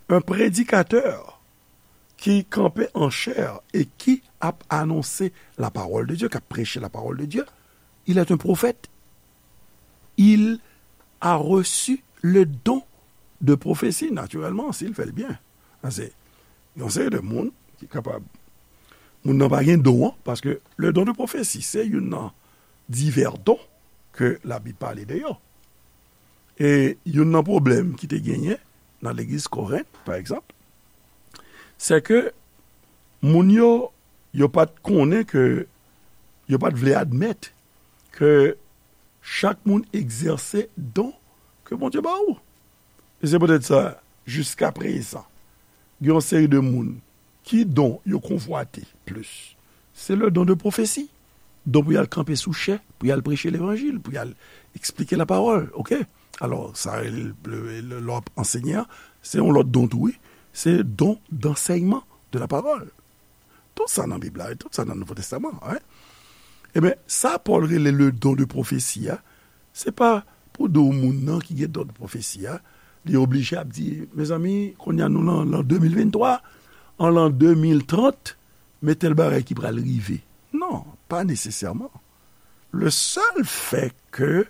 un prédicateur ki kanpe an chè e ki ap anonse la parole de Dieu, k ap preche la parole de Dieu, il est un prophète. Il a reçu le don de prophétie, naturellement, s'il fait le bien. Sa se yon seri de moun ki kapab. Moun nan pa gen don an, paske le don de prophétie, se youn nan divè don ke Labib pale de yo. E youn nan pwoblèm ki te genyen nan legliz Korent, pa egzanp, se ke moun yo, yo pa t konnen ke, yo pa t vle admèt ke chak moun egzèse don ke Bondye ba ou. E se poutèt sa, jiska prezan, gen yon seri de moun ki don yo konvwate plis. Se le don de pwofesi. Don pou y al kanpe sou chè, pou y al preche levanjil, pou y al eksplike lapawòl, oke? Alò, sa, le, le, le, lè w ap ansenye a, se yon lòt don tou, wi. Se don d'ansèyman de lapawòl. Tout sa nan Bib la, tout sa nan Nouvo Testaman, wi. Ebyen, sa Pòl rele le don de pwofesi a, se pa pou di w moun nan ki gen don de pwofesi a, li oblije ap di, mezanmi, kounye a nou lan, lan de mil venntwa, an lan de mil trant, men tèl bagay ki pral rive. Non, pa nesesèman. Le seul fait que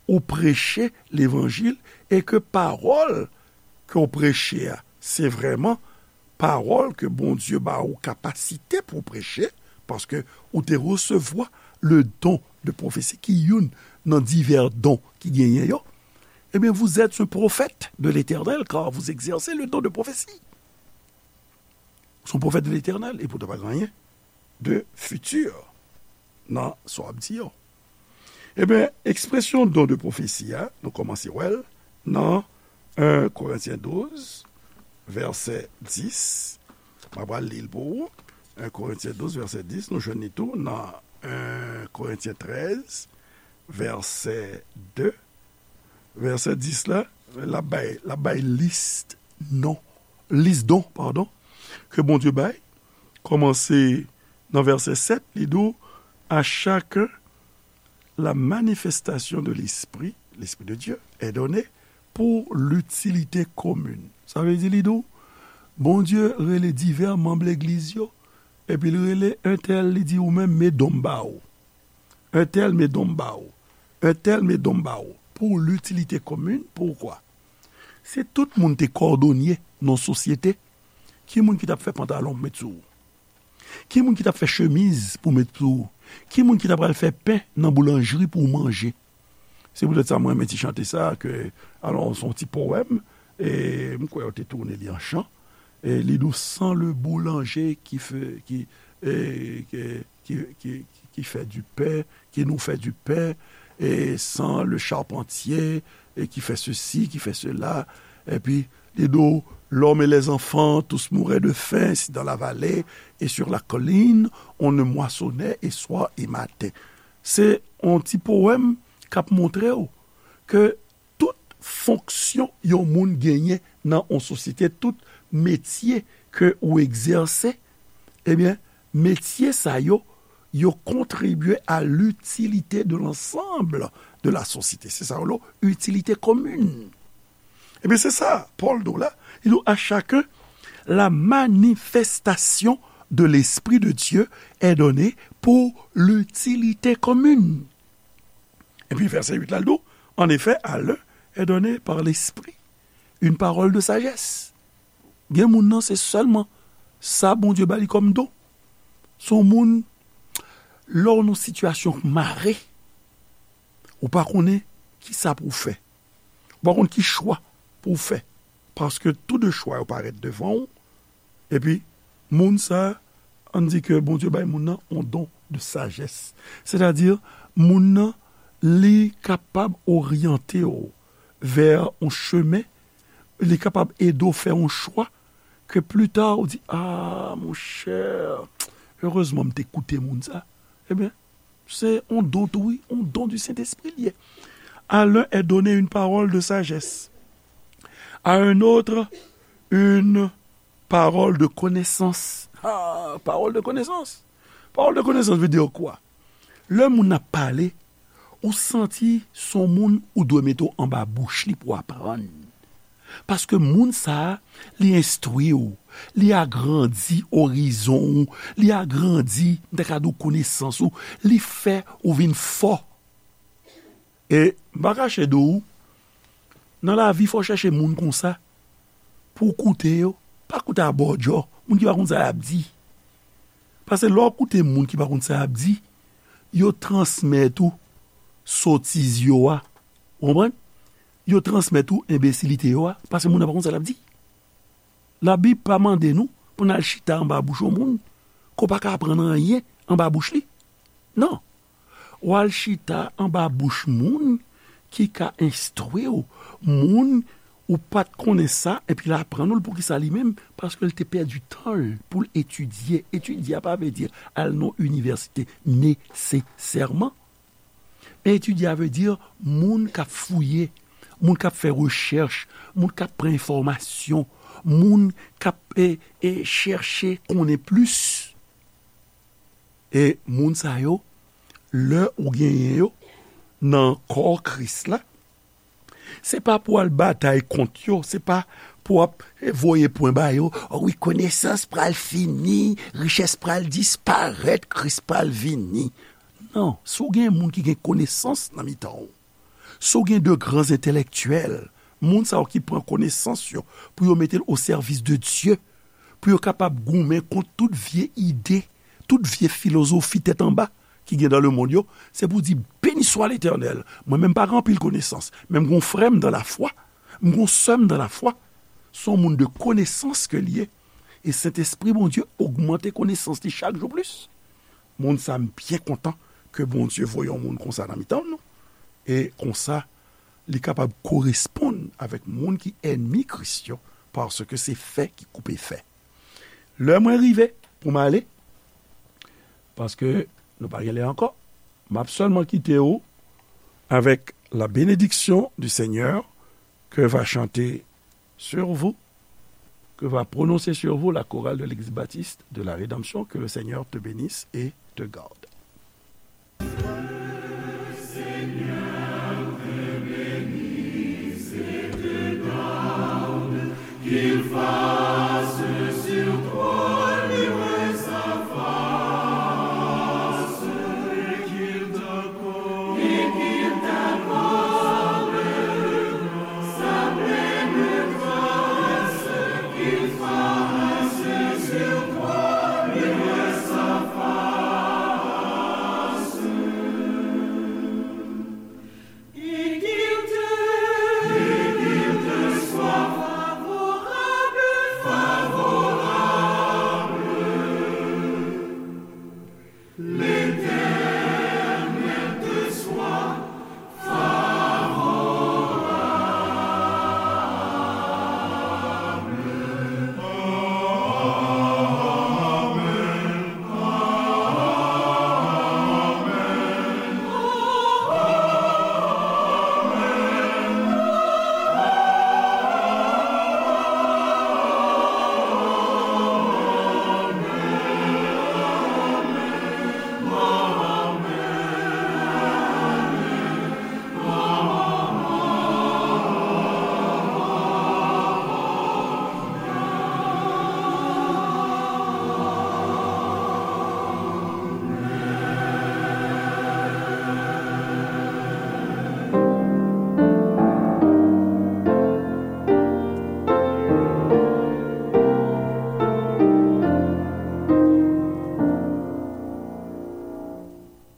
ou preche levanjil e ke pawòl ke w preche a, se vrèman pawòl ke Bondye ba ou kapasite pou w preche, paske ou te resevwa le don de pwofesi, ki youn nan divè don ki genyen yo, ebyen, vous êtes un prophète de l'Éternel, car vous exercez le don de prophétie. Ou se yon pwofèt de Letènèl, e poutan pa gen anyen de fiti nan sa w ap di yo. Ebyen, ekspresyon don de pwofesi a, nou kòmanse wè l nan en Korentyen douz, vèsè dis. M ap pral li l pou ou. En Korentyen douz, vèsè dis, nou jwenn li tou nan en Korentyen trèz, vèsè de. Vèsè dis la, l ap bay, l ap bay lis non, lis don, padon, ke Bondye bay. Kòmanse nan vèsè sèt, li di w, à chacun la manifestation de l'Esprit, l'Esprit de Dieu, est donnée pour l'utilité commune. Sa vle di, li di w, Bondye rele divè manm legliz yo, epi l rele entèl, li di, ou menm, men don m ba ou. Entèl, men don m ba ou. Entèl, men don m ba ou. Pour l'utilité commune, poukwa? Si tout moun te kòdonye nan sosyete, ki moun ki t ap fè pantalon pou met sou ou? Ki moun ki t ap fè chemiz pou met sou ou? Ki moun ki t ap al fè pen nan boulanjri pou w manje? Se poutèt sa mwen renmen ti chante sa, ke, alò, se yon ti powèm, e m kwè yo te tounen li an chan. E li di w, sans le boulanger qui fait, qui, e, qui, qui, qui, qui fait du pain, qui nous fait du pain, et sans le charpentier, et qui fait ceci, qui fait cela. Epi, li di w, l'homme et les enfants, tous mouraient de faim, si dans la vallée et sur la colline, on ne moissonnait et soir et matin. Se yon ti powèm k ap montre w ke tout fonksyon yon moun genyen nan yon sosyete, tout metye ke ou egzèse, ebyen, metye sa yo, yo contribuer à l'utilité de l'ensemble de la société. Se sa yo rele utilité commune. Ebyen, se sa, Pòl di w la, li di w, à chacun la manifestation de l'Esprit de Dieu est donnée pour l'utilité commune. Epi vèsè uit la, l di w, en effet, à l'un est donnée par l'Esprit une parole de sagesse. Gen moun nan, se sèlman sa Bondye ba li kòm don. Se yon moun, lè w nan sitiyasyon k mare, ou pa konnen ki sa pou w fè. Ou pa konn ki chwa pou w fè. Paske tou de chwa yo parèt devan w, epi moun sa ann di ke Bondye bay moun nan yon don de sajès. Sètadi, moun nan, li kapab oryante w vè yon chemen, li kapab ede w fè yon chwa ke pli ta ou di, "Ah, monchè, erezman m te koute moun sa." Ebyen, se yon don tou, wi, yon don du Saint-Esprit li ye. À l'un est donné une parole de sagesse, à un autre une parole de connaissance. Ah, parole de connaissance. Parole de connaissance veut dire quoi? Lè moun ap pale, ou santi se yon moun ou dwe mete w anba bouch li pou w aprann. Paske moun sa a, li enstwi w, li agrandi orizon ou, li agrandi, m ta ka di w, konesans ou, li fè ou vin fò. E m pa kache di w, nan lavi, fò w chèche moun konsa pou w koute yo. Pa koute abòdjò, moun ki pa konn sa y ap di. Paske lè w koute moun ki pa konn sa y ap di, yo transmèt ou sotiz yo a. Ou konprann? Yo transmèt ou enbesilite yo a, paske moun nan pa konn sa l ap di. Labib pa mande nou pou n al chita anba bouch yon moun ke w pa ka aprann anyen anba bouch li. Non. W al chita anba bouch moun ki ka enstwi w, moun ou pa t konnen sa, epi l aprann ou l. Poukisa li menm? Paske l te pèdi tan l pou l etidye. Etidye a pa vle di al nan inivèsite nesesèman. Men etidye a vle di moun k ap fouye, moun k ap fè rechèch, moun k ap pran enfòmasyon, moun k ap, e, e, chèche konnen plis. E moun sa yo, lè ou genyen yo nan kò Kris la, se pa pou w al batay kont yo, se pa pou w ap voye pwen ba yo, "O wi, konesans pral fini, richès pral disparèt, Kris pral vini." Non, si w gen moun ki gen konesans nan mitan w, si w gen de gran entèlektyèl, moun sa yo ki pran konesans yo pou yo mete l o sèvis de Dye, pou yo kapab goumen kont tout vye ide, tout vye filozofi tèt anba ki gen dans le monde yo, se pou di, "Béni soit l'Éternel, mwen menm pa gen anpil konesans, men m gon frè m dans la foi, m gon sè m dans la foi." Se yon moun de konesans ke l ye. E Sentespri Bondye ogmante konesans li chak jou plis. Moun sa, m byen kontan ke Bondye voye yon moun konsa nan mitan nou. E konsa, li kapab koresponn avèk moun ki ènmi Kris yo, paske se fè ki koupe fè. Lè mwen rive pou m ale, paske nou pa gen lè ankò, m ap sèlman kite w avec la bénédiction du Seigneur que va chanter sur vous, que va prononcer sur vous la chorale de l'Église baptiste de la Rédemption. Que le Seigneur te bénisse et te garde.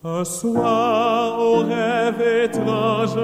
Un soir, au rêve étrange,